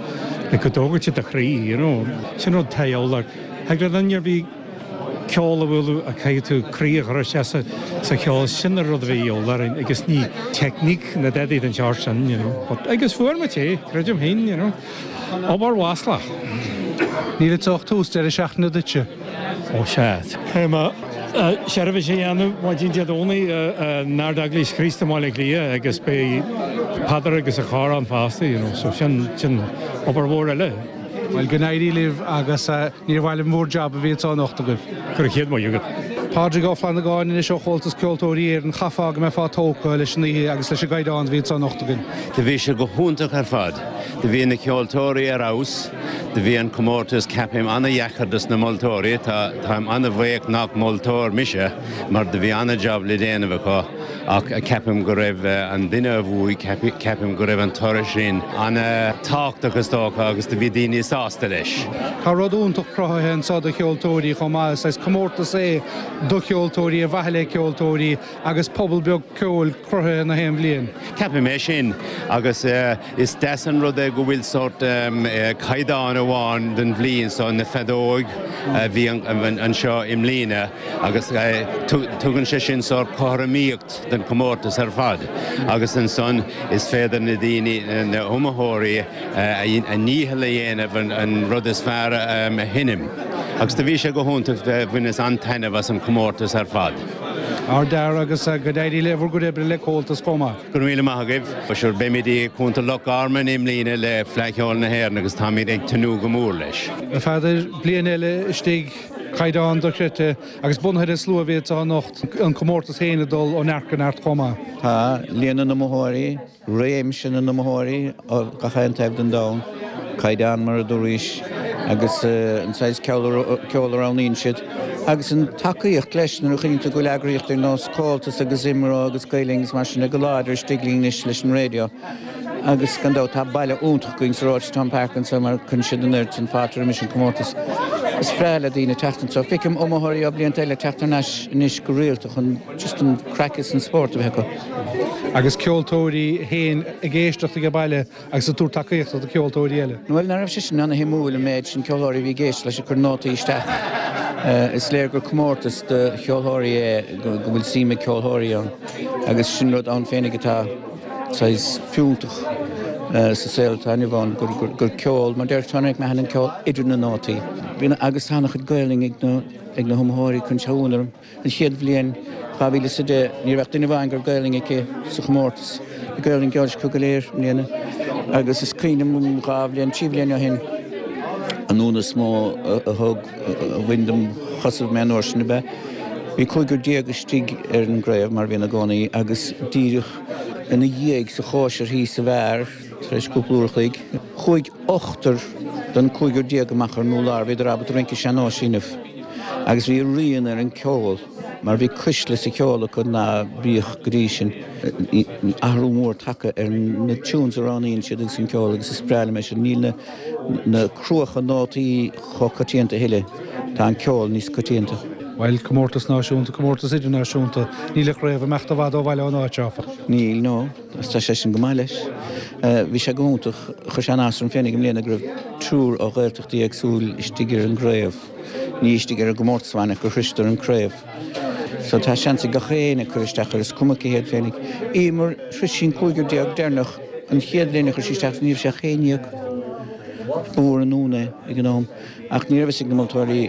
like go dtógfadh sé do chroí, you know. Sin rud atá de dhíobháil. Thig le duine ar bith ceol a bhualadh ach caithfidh tú croí a chur isteach sa cheol, sin an rud a bhí de dhíobháil orainn agus ní teicníc ná dadaí den tsórt sin, you know. But, agus fuair muid é, creidim féin, you know. Obair mhaslach. Níl anseo ach tús deireadh seachtaine duitse. Ó sea. Caithfidh mé seirbhís a dhéanamh maidin Dé Domhnaigh in Ard-Eaglais Chríost i mBaile Átha Cliath agus beidh Peadar agus a chór ann fosta, you know, so sin, sin obair mhór eile. Bhuel, go n-éirí libh agus níor mhaith liom bhur jab a bhí anseo anocht agaibh. Go raibh chéad maith agat. Pádraig Ó Flannagáin anois ó Chomhaltas Ceoltóirí Éireann, chaithfeá go mbeifeá tógtha leis an oíche agus leis an gcaighdeán a bhí anseo anocht againn. Do bhí sé go hiontach ar fad. Do bhí na ceoltóirí ar fheabhas. Do bhí an comórtas, ceapaim, ana-dheacair dos na moltóirí. Tá, táim ana-bhuíoch nach moltóir mise mar do bhí ana-jab le déanamh acu. Ach ceapaim go raibh an duine a bhuaigh, ceapaim go raibh an toradh sin ana-thábhachtach is dócha agus do bhí daoine sásta leis. Tá rud iontach cruthaithe anseo do cheoltóirí chomh maith. Is saghas comórtas é do cheoltóirí, ar mhaithe le ceoltóirí agus pobal beag ceoil cruthaithe na haon bhliain. Ceapaim é sin agus is deas an rud é go bhfuil sórt caighdeán amháin don bhliain so, na feadóig a bhí anseo i mbliana. Agus tugann sé sin sórt cothromaíocht don chomórtas ar fad agus ansan is féidir na daoine, na hiomaitheoirí, a ndícheall a dhéanamh an rud is fearr a sheinm. Agus do bhí sé go hiontach, bhaineas an-taitneamh as an chomórtas ar fad. Ardfhear agus go n-éirí le bhur gcuid oibre le Comhaltas chomh maith. Go raibh míle maith agaibh. Sure, beimid i gContae Loch Garman i mbliana le Fleadh Cheoil na hÉireann agus táimid ag tnúth go mór leis. A Pheadair, bliain eile istigh. Caighdeán dochreidte agus bunaithe ar an slua a bhí anseo anocht, an comórtas féin ag dul ó neart go neart chomh maith. Tá líon na n-iomaitheoirí, réimse na n-iomaitheoirí ó gach aon taobh den domhan, caighdeán mar a dúraís agus an saghas ceoil a roghnaíonn siad agus an tacaíocht leis nuair a chuimhníonn tú go bhfuil eagraíocht ar nós Comhaltas agus IMRO agus Gael Linn agus mar sin go láidir istigh linn anois leis an raidió. Agus gan dabht tá baile iontach againn sa Rochestown Park anseo mar cuireann siad an oiread sin fáilte roimis an comórtas. Is breá le daoine teacht anseo. Feicim iomaitheoirí ó blianta eile teacht thar n-ais anois go rialta chun just an craic is an spórt a bheith acu. Agus ceoltóirí féin ag éisteacht age baile agus ag tabhairt tacaíochta do cheoltóirí eile. Bhuel, nach raibh sé sin ana-shuimiúil an méid sin ceoltóirí a bhí ag éisteacht leis ag cur nótaí isteach. Is léir gur comórtas do cheoltóirí é, go bhfuil suim ag ceoltóirí ann agus sin rud ann féinig atá saghas fiúntach sa saol atá inniu ann, gur ceol, mar deir Tony McMahon, an ceol idir na nótaí. Bíonn agus tá an-chuid Gaelainn ag na ag na hiomaitheoirí, cuireann sé ionadh orm. An chéad bhliain, 2010, ní raibh ach duine amháin go raibh Gaelainn aici sa chomórtas. Bhí Gaelainn Geoirse acu go léir i mbliana. Agus is cuimhin liom dhá bhliain, trí bhliain ó shin, an ionadh is mó a thug, a bhain dem chosaibh mé an uair sin ab ea, bhí cúigear déag istigh ar an gcraobh, mar a bhíonn i gcónaí, agus díreach ina dhiaidh sa chóisir thíos sa bheár, tar éis cúpla uair a chloig, chuaigh ochtar den cúigear déag amach ar an urlár, bhíodar ábalta rince sean-nóis a dhéanamh agus bhí a rian ar an ceol mar bhí cuisle sa cheol acu ná bíodh go dtí sin. Athrú mór tagtha ar na tunes a roghnaíonn siad agus an ceol agus is breá liom é sin. Níl na na cruacha nótaí chomh coitianta a thuilleadh, tá an ceol níos coitianta. Bhuel, comórtas náisiúnta, comórtas idirnáisiúnta, níl an chraobh ag imeacht i bhfad ó bhaile ón áit, áfach. Níl, no, agus tá sé sin go maith leis. Bhí sé go hiontach, chuir sé an-áthas orm féinig i mbliana go raibh triúr ó Ghaeltachtaí éagsúil istigh ar an gcraobh, ní istigh ar an gcomórtas amháin ach gur shroiseadar an craobh. So tá seans ag gach éinne cur isteach air, is cuma cé hiad féinig. Emer, shrois sí an cúigear déag deireanach. An chéad bhliain a chuir sí isteach ní raibh sé ach 11. Ba mhór an ionadh é ag an am, ach ní raibh fhios ag na moltóirí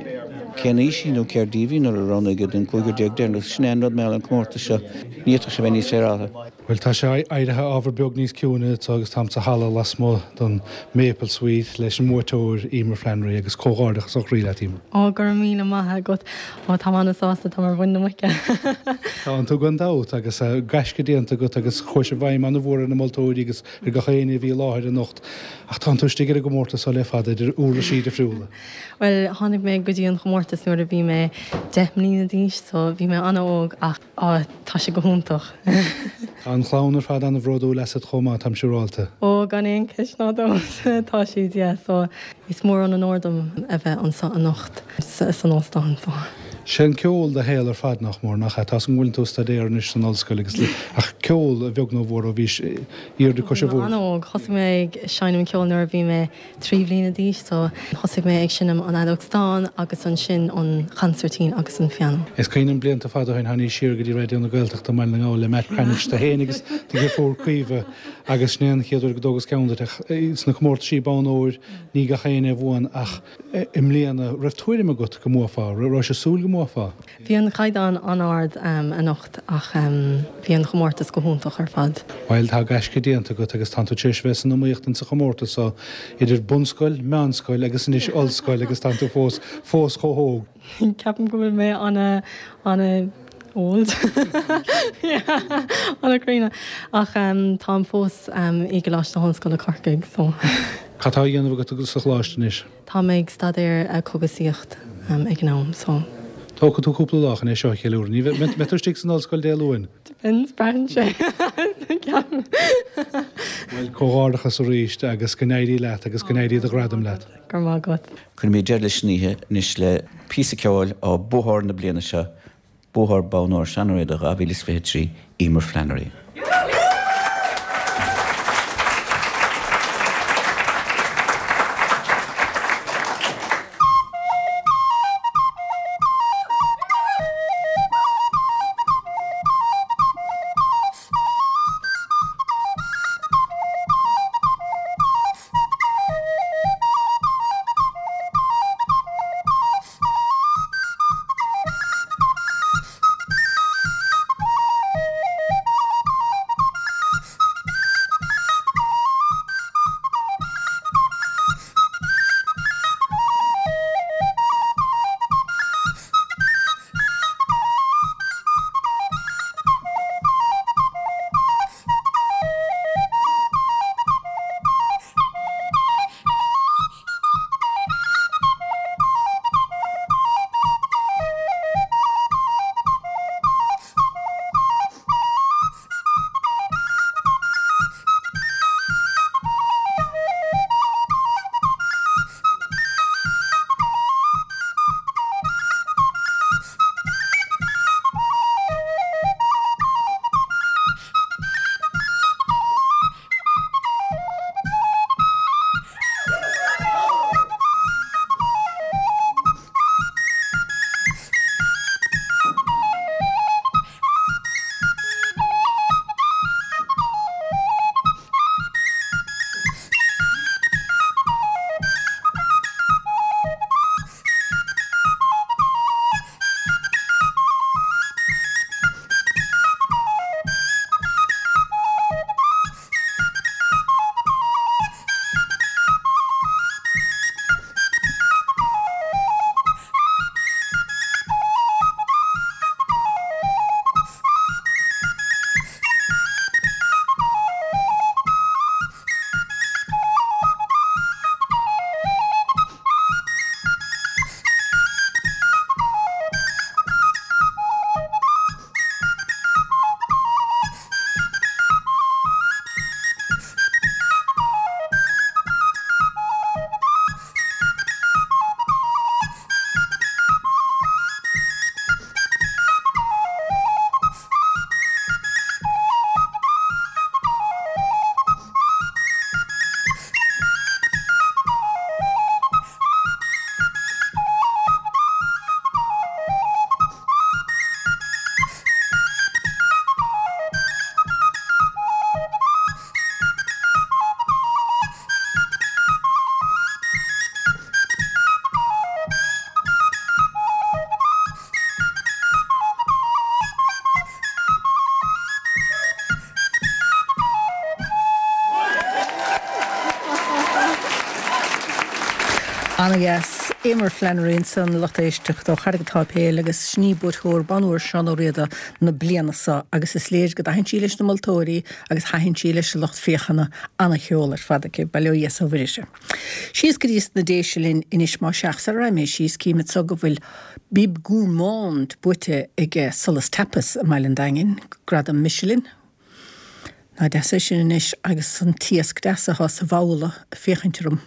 cén aois í nó céard díobh í nuair a roghnaíodh í don cúigear deireanach. Sin é an rud mar gheall ar an chomórtas seo, ní fhéadfadh sé bheith níos féaráilte. Bhuel, tá sé éirithe ábhar beag níos ciúine anseo agus táim sa halla lasmuigh den Maple Suite leis an mbuaiteoir, Emer Flannery, agus comhghairdeachas ó chroí leat, Emer. Ó, go raibh míle maith agat. Ó, táim an-sásta, táim ar mhuin na muice. Tánn tú gan dabht, agus gaisce déanta agat agus chuaigh sé i bhfeidhm an-mhór ar na moltóirí agus ar gach éinne a bhí i láthair anocht. Ach tánn tú istigh ar an gcomórtas seo le fada, idir uirlisí difriúla. Bhuel, tháinig mé go dtí an chomórtas nuair a bhí mé 10 mbliana d'aois, so bhí mé an-óg ach á, tá sé go hiontach. Tá an chlann ar fad an-bhródúil asat chomh maith, táim siúráilte. Ó, gan aon cheist ná dabht, tá siad, yeah, so is mór an onóir dom a bheith anseo anocht san óstán, so. Sé an ceol do shaol ar fad, nach mór, nach ea? Tá 's agam go bhfuileann tú ag staidéar anois san ollscoil agus, ach ceol, a bheag nó a mhór, ó bhís airde cois an Bhí mé bhoird. an-óg. Thosaigh mé ag seinm ceoil nuair a bhí mé 3 bhliana d'aois so thosaigh mé ag seinm an fheadóg stáin agus ansin an chansairtín agus an pianó. Is cuimhin liom blianta fada ó shin tháinís siar go dtí Raidió na Gaeltachta i mBaile na nGall le Matt Cranitch, tú féin agus do dheirfiúr Caoimhe agus sin é an chéad uair go dtógas ceann duit ach sna comórtaisí bonn óir ní gach éinne a bhuann ach i mbliana raibh tuairim agat go mbuafá, raibh sé súil go mbuafá? Bhí an caighdeán an-ard anocht ach bhí an chomórtas go hiontach ar fad. Bhuel, tá gaisce déanta agat agus tánn tú tar éis bheith san iomaíocht insa chomórtas seo idir bunscoil, meánscoil agus anois ollscoil agus tánn tú fós, fós chomh hóg. Ceapaim go bhfuil mé ana, ana old. Yeah, ana críonna. Ach táim fós i gColáiste na hOllscoile Corcaigh so. Cad tá á dhéanamh agat sa choláiste anois? Tá mé ag staidéar cógaisíocht ag an am so. Tógfaidh tú cúpla lá chun é seo a cheiliúradh. Ní bheidh, mbeidh tú istigh san ollscoil Dé Luain? Depends, braitheann sé. Ceapaim. Bhuel, comhghairdeachas arís agus go n-éirí leat agus go n-éirí do ghradam leat. Go raibh maith agat. Cuirfimid deireadh leis an oíche anois le píosa ceoil ó buathóir na bliana seo, Buathóir Bonn Óir Seán Ó Riada 2023, Emer Flannery. Ana-dheas. Eimear Flannery ansan, lucht éisteachta ó Charraig an tSáipéil agus sin í buaiteoir Bonn Óir Seán Ó Riada na bliana seo agus is léir go dtaithin sí leis na moltóirí agus thaitin sí leis an lucht féachana. Ana-cheol ar fad aici, bail ó Dhia is ó Mhuire uirthi. Síos go dtí sna Déise linn anois más ea, sara raghaidh mé síos cím anso go bhfuil Bib Gourmand buaite ag Solas Tapas i mBaile an Daingin, gradam Michelin. Nach deas é sin anois agus an t-iasc deas atá sa bhabhla ag féachaint orm.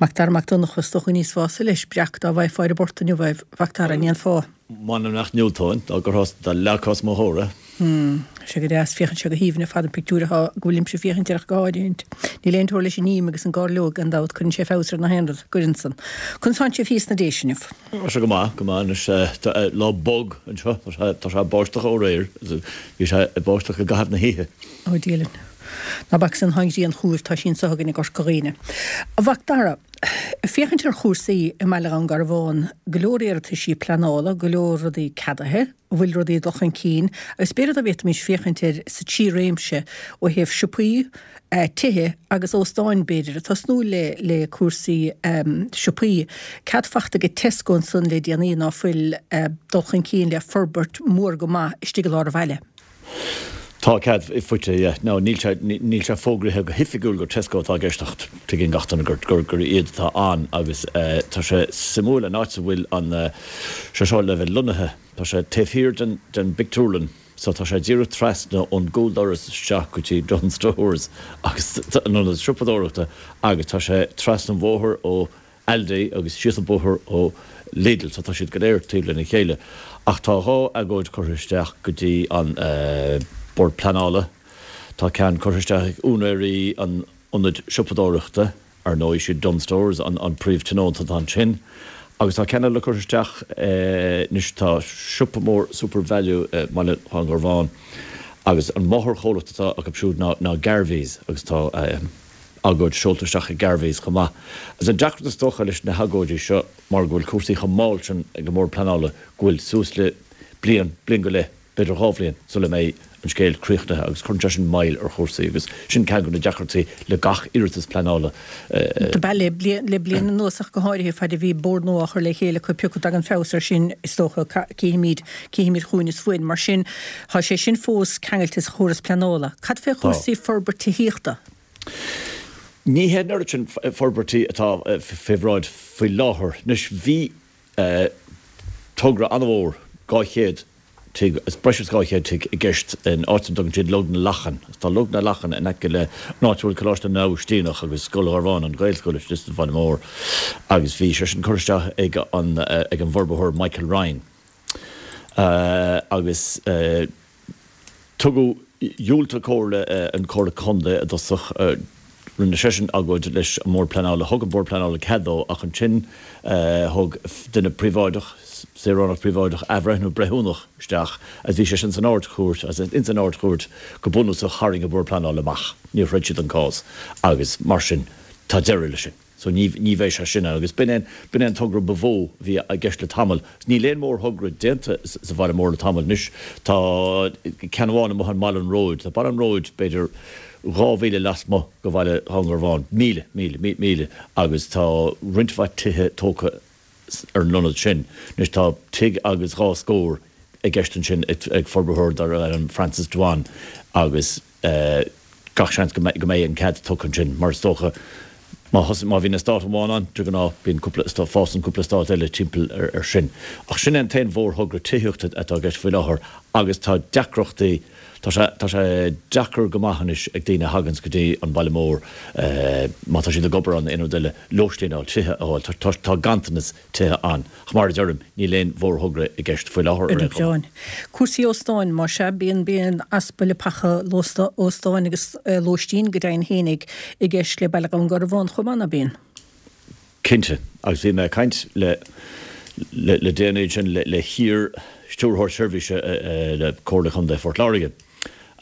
Mac Dara Mac Donncha, is dócha go n-íosfása leis breac dá bhfaighfeá ar an bport inniu é, a Mhac Dara, an ndéanfá? M'anam nach ndiúltóinn dá gcuirfeá, dá leagfá os mo chomhair é. Tá sé go deas, féachann sé go haoibhinn ar fad an pictiúr atá, go bhfuilimse ag féachaint air ach go háirithint. Níl aon teora leis an ím agus an gairleog gan dabht, cuireann sé feabhas ar na haon rud, gcuireann san. Conas tánn sibh thíos sna Déise inniu? Tá sé go maith, go maith anois. Tá lá bog anseo, tá sé, tá sé ag báisteach ó aréir, bhí sé ag báisteach i gcaitheamh na hoíche. Ó Dia linn. Ná bac san, tá an ghrian chugaibh, tá sí anso againn i gCorca Dhuibhne. A Mhac Dara, ag féachaint ar chúrsaí i mBaile Dhún Garbhán, go leor iarrataisí pleanála, go leor rudaí ceadaithe, an bhfuil rudaí ag dul chun cinn agus b'fhéidir dá bhféadfaimis féachaint air sa trí réimse ó thaobh siopaí, tithe agus óstáin b'fhéidir, ag tosnú le le cúrsaí siopaí. Cead fachta ag Tesco ansan le déanaí ná fuil dul chun cinn le forbairt mór go maith istigh i lár an bhaile. Tá cead faighte, yeah. Now níl sé, níl sé fógraithe go hoifigiúil gur Tesco atá i gceist ach tuigeann gach duine gur, gur, gur iad atá ann agus tá sé suimiúil an áit a bhfuil an, sé seo le bheith lonnaithe, tá sé taobh thiar den, den bpictiúrlann so tá sé díreach trasna ón gcúldoras isteach go dtí Dunnes Stores agus an ionad siopadóireachta agus tá sé trasna an bhóthair ó Aldi agus síos an bóthar ó Lidl so tá siad go léir taobh lena chéile. Ach tá 2 agóid curtha isteach go dtí an Bord Pleanála. Tá ceann curtha isteach ag úinéirí an ionaid siopadóireachta, ar ndóigh siad Dunnes Stores an príomh-tionónta atá ansin. Agus tá ceann eile curtha isteach anois, tá siopa mór SuperValu i mBaile Dhún Garbhán agus an máthairchomhlacht atá acu siúd ná Garveys agus tá agóid seolta isteach ag Garveys chomh maith. Agus an deacracht is dócha leis na hagóidí seo mar go bhfuil cúrsaí chomh mall sin ag an mBord Pleanála go bhfuil suas le bliain, bliain go leith, b'fhéidir 2 bhliain sula mbeidh an scéal críochnaithe agus cuireann sé sin moill ar chúrsaí agus sin ceann de na deacrachtaí le gach iarratas pleanála. Do b'ea le bliain anuas ach go háirithe faid a bhí bord nua á chur le chéile acu pioca dtagann feabhas air sin is dócha cífimid cífimid chugainn is uainn. Mar sin tá sé sin fós ceangailte sa chóras pleanála. Cad fé chúrsaí forbairt tithíochta? Ní hé an oiread sin forbairtí atá fé bhráid faoi láthair. Anois, bhí togra an-mhór, 200 tigh, breis is 200 tigh i gceist in áit a dtugann siad Log na Lachan. Agus tá Log na Lachan in aice le an áit a bhfuil Coláiste na nAibhistíneach agus Scoil Gharbháin, an Ghaelscoil istigh sa bhaile mór. Agus bhí sé sin curtha isteach ag an ag an bhforbarthóir Michael Ryan. Agus. Tugadh, dhiúltaigh Comhairle, an Comhairle Contae i dtosach, rinne seisean agóid leis an mBord Pleanála, thug an Bord Pleanála cead dó ach ansin thug duine príobháideach, saoránach príobháideach, athbhreithniú breithiúnach isteach agus bhí sé sin san Ard-Chúirt agus ins an Ard-Chúirt go bunúsach tharraing an Bord Pleanála amach, níor throid siad an cás agus mar sin tá deireadh leis sin. So ní, ní bheidh sé sin ann. Agus b'in é, b'in é an togra ba mhó a bhí i gceist le tamall. Níl aon mhórthogra déanta sa bhaile mór le tamall anois. Tá ceann amháin amuigh i mBaile an Róid. Tá Baile an Róid b'fhéidir 2 mhíle lasmuigh de bhaile Dhún Garbhán, míle, míle, míle, agus tá roinnt mhaith tithe tógtha ar an ionad sin. Anois tá tigh agus dhá scór i gceist ansin ag forbarthóir darb ainm Francis Dwan agus, Gach seans go mbeidh an cead tugtha ansin, mar is dócha má thosaigh, má bhíonn eastát amháin ann, de ghnáth bíonn cúpla, fásann cúpla eastát eile timpeall air sin. Ach sin é an t-aon mhórthogra tithíochta atá i gceist faoi láthair agus tá deacrachtaí, tá sé, tá sé deacair go maith anois ag daoine a thaganns go dtí an baile mór, má tá siad ag obair ann nó aon rud eile, lóistín a fháil, tithe a fháil. Tá, tá ganntanas tithe ann. Ach mar a deirim, níl aon mhórthogra i gceist faoi láthair ar aon chuma. Cúrsaí óstáin, más ea, bíonn bíonn easpa leapacha óstáin agus lóistín go deimhin fhéinig i gceist le Baile Dhún Garbhán chomh maith, ná bíonn? Cinnte, agus bhí mé ag caint le le déanaí ansin le hiar-Stiúrthóir Seirbhíse le Comhairle Chontae Phort Láirge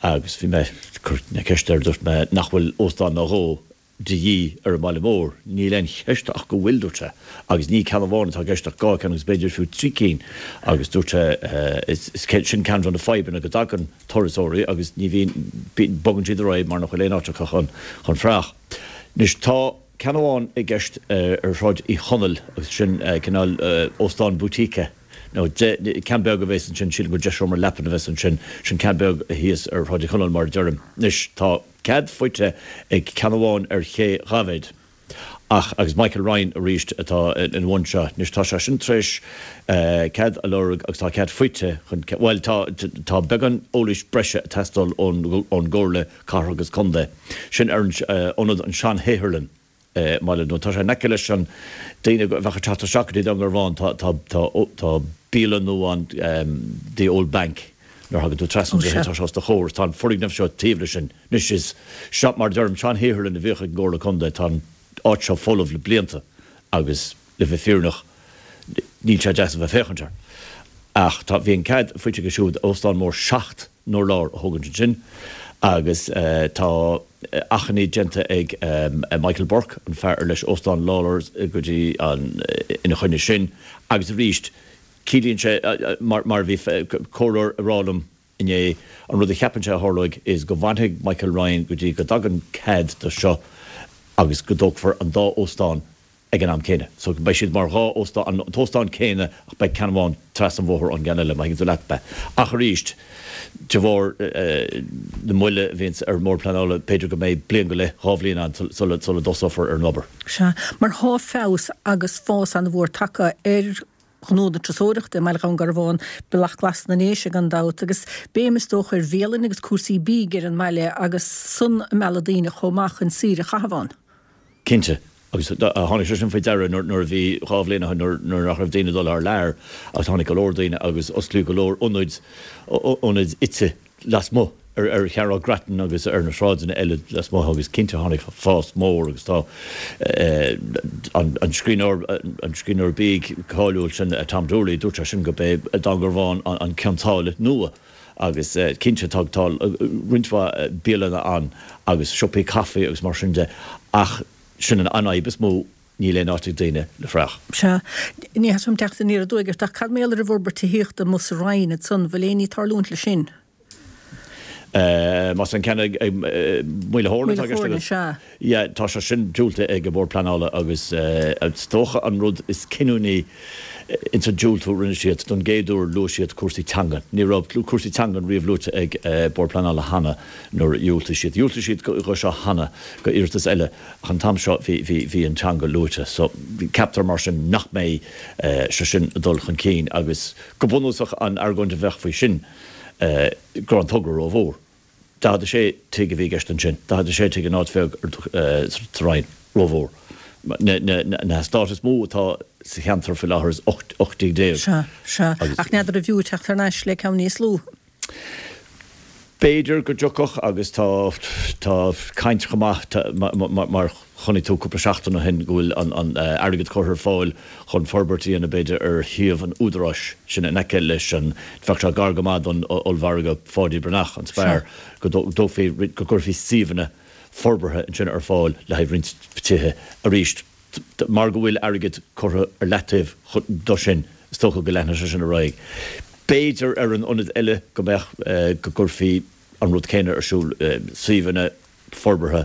agus bhí mé ag cur na ceiste air, dúirt mé nach bhfuil óstán nó dhó de dhíth ar an mbaile mór. Níl aon cheist ach go bhfuil, dúirt sé, agus ní ceann amháin atá i gceist ach 2 ceann agus b'fhéidir fiú 3 cinn agus dúirt sé is sin ceann de na fadhbanna go dtagann turasóirí agus ní bhíonn, bogann siad ar aghaidh mar nach bhfuil aon áit acu chun chun fuireach. Anois tá. ceann amháin i gceist ar Shráid Uí Chonaill agus sin cineál óstán boutique nó ceann beag a bheas ansin, sílim gur 10 seomra leapan a bheas ansin, sin ceann beag thíos ar Shráid Uí Chonaill mar a deirim. Anois tá cead faighte ag ceann amháin ar Ché Dhaibhéid. Ach, agus Michael Ryan arís atá ina bhun seo. Anois tá sé sin tar éis cead a lorg agus tá cead faighte chun, bhuel tá, tá beagán eolais breise ag teastáil ón gComhairle Cathrach agus Contae. Sin ar an ionad an sean-shaotharlann i mBaile an Dúin. Tá sé in aice leis an, daoine a bheadh ag teacht isteach go dtí Dún Garbhán, tá, tá, tá, tá bialann nua ann, The Old Bank, nuair a thagann tú trasna an droichead tá sé os do chomhair. Tá an foirgneamh seo taobh leis sin. Anois is seo, mar a deirim, sean-shaotharlann a bhíodh ag an gComhairle Contae. Tá an áit seo folamh le blianta agus, le bheith fírinneach, níl sé deas a bheith ag féachaint air. Ach tá, bhí an cead faighte aige siúd óstán mór 7 n-urlár a thógaint ansin agus tá achainí déanta ag Michael Burke, an fear ar leis Óstán Lawlor's go dtí an, ina choinne sin agus arís ciallaíonn sé, mar a bhí comhairleoir ag rá liom, Inné. An rud a cheapann sé a tharlóidh is go bhfanfaidh Michael Ryan go dtí go dtagann cead do seo agus go dtógfar an dá óstán ag an am céanna. So beidh siad mar dhá óstán, an t-óstán céanna ach beidh ceann amháin trasna an bhóthair ón gceann eile, má thuigeann tú leat mé. Ach arís, de bharr na moille a bhíonns ar an mBord Pleanála, b'fhéidir go mbeidh bliain go leith, 2 bhliain ann sula dtosófar ar an obair. Sea, mar thá feabhas agus fás an-mhór tagtha ar ghnó na turasóireachta i mBaile Dhún Garbhán, Bealach Glas na nDéise gan dabht, agus béim is dócha ar bhialanna agus cúrsaí bídh ar an mbaile agus san ag mealladh daoine chomh maith chun saoire a chaitheamh ann. Cinnte, agus tháinig sé sin faoi deara nuair a bhí, 2 bhliain ó shin, nuair nach raibh daoine ag dul thar lear agus tháinig go leor daoine agus osclaíodh go leor ionaid, ionaid ite lasmuigh ar Chearnóg Grattan agus ar na sráideanna eile lasmuigh agus cinnte tháinig fás mór agus tá an scríbhneoir, an scríbhneoir bídh cáiliúil sin Tom Doorley, dúirt sé sin gurb é Dún Garbhán an Cionn tSáile nua agus cinnte tá tá roinnt mhaith bialanna ann agus siopaí caife agus mar sin de ach sin an fhadhb is mó Níl aon áit ag daoine le fraoch. Sea. Ní theastaíonn uaim teacht aniar aduaidh ort, ach cad mar gheall ar an bhforbairt tithíochta amuigh sa Rinn ansan, bhfuil aon ní ag tarlúint leis sin? Más an ceann ag Maoil a' Thóirne atá i gceist Maoil a' Thóirne, sea. Yeah, tá sé sin diúltaithe ag an Bhord Pleanála agus is dócha an rud is cinniúnaí ins an diúltú a rinne siad, don gcéad uair luaigh siad cúrsaí teangan. Ní raibh cúrsaí teangan riamh luaite ag Bord Pleanála cheana nuair a dhiúltaigh siad. Dhiúltaigh siad dho seo cheana, go iarratas eile. Ach an t-am seo bhí, bhí, bhí an teanga luaite. So, ceaptar mar sin nach mbeidh sé sin ag dul chun cinn agus go bunúsach an argóint a bheadh faoi sin go raibh an togra rómhór. 46 tigh a bhí i gceist ansin, 46 tigh in áit bheag sa Rinn, rómhór. Na, na, na heastáit is mó atá sa cheantar faoi láthair is 18 tigh. Sea, sea. Ach n'fheadar an bhfiú teacht thar n-ais le ceann níos lú. B'fhéidir go dtiocfadh agus tá tá caint chomh maith mar chonaic tú cúpla seachtain ó shin go bhfuil an airgead curtha ar fáil chun forbairt a dhéanamh b'fhéidir ar shuíomh an Údaráis sin in aice leis an bheadh sé gar go maith don ollmhargadh Pháidí Breathnach, an Spar, go dtógfaí go gcuirfí suíomhanna forbartha ansin ar fáil le haghaidh roinnt tithe arís. Mar go bhfuil airgead curtha ar leataobh do sin, is dócha go leanfaidh sé sin ar aghaidh. B'fhéidir ar an ionad eile go mbeadh, go gcuirfí an rud céanna ar siúl, suíomhanna forbartha,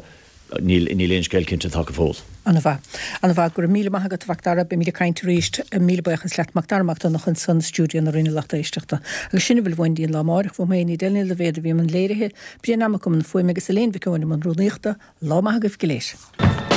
níl aon scéal cinnte tagtha fós. An-mhaith. An-mhaith. Go raibh míle maith agat, a Mhac Dara. Beimid ag caint arís. Míle buíochas leat, Mac Dara Mac Donncha ansan i stiúideo na Rinne lucht éisteachta. Agus sin a bhfuil uainn go dtí an lá amáireach. Uaim féin, Edel Ní Loibhéad a bhí i mbun léirithe, Brian Mac i mbun fuaime agus Elaine Mhic Eoin i mbun rúnaíochta. Lá maith agaibh go léir.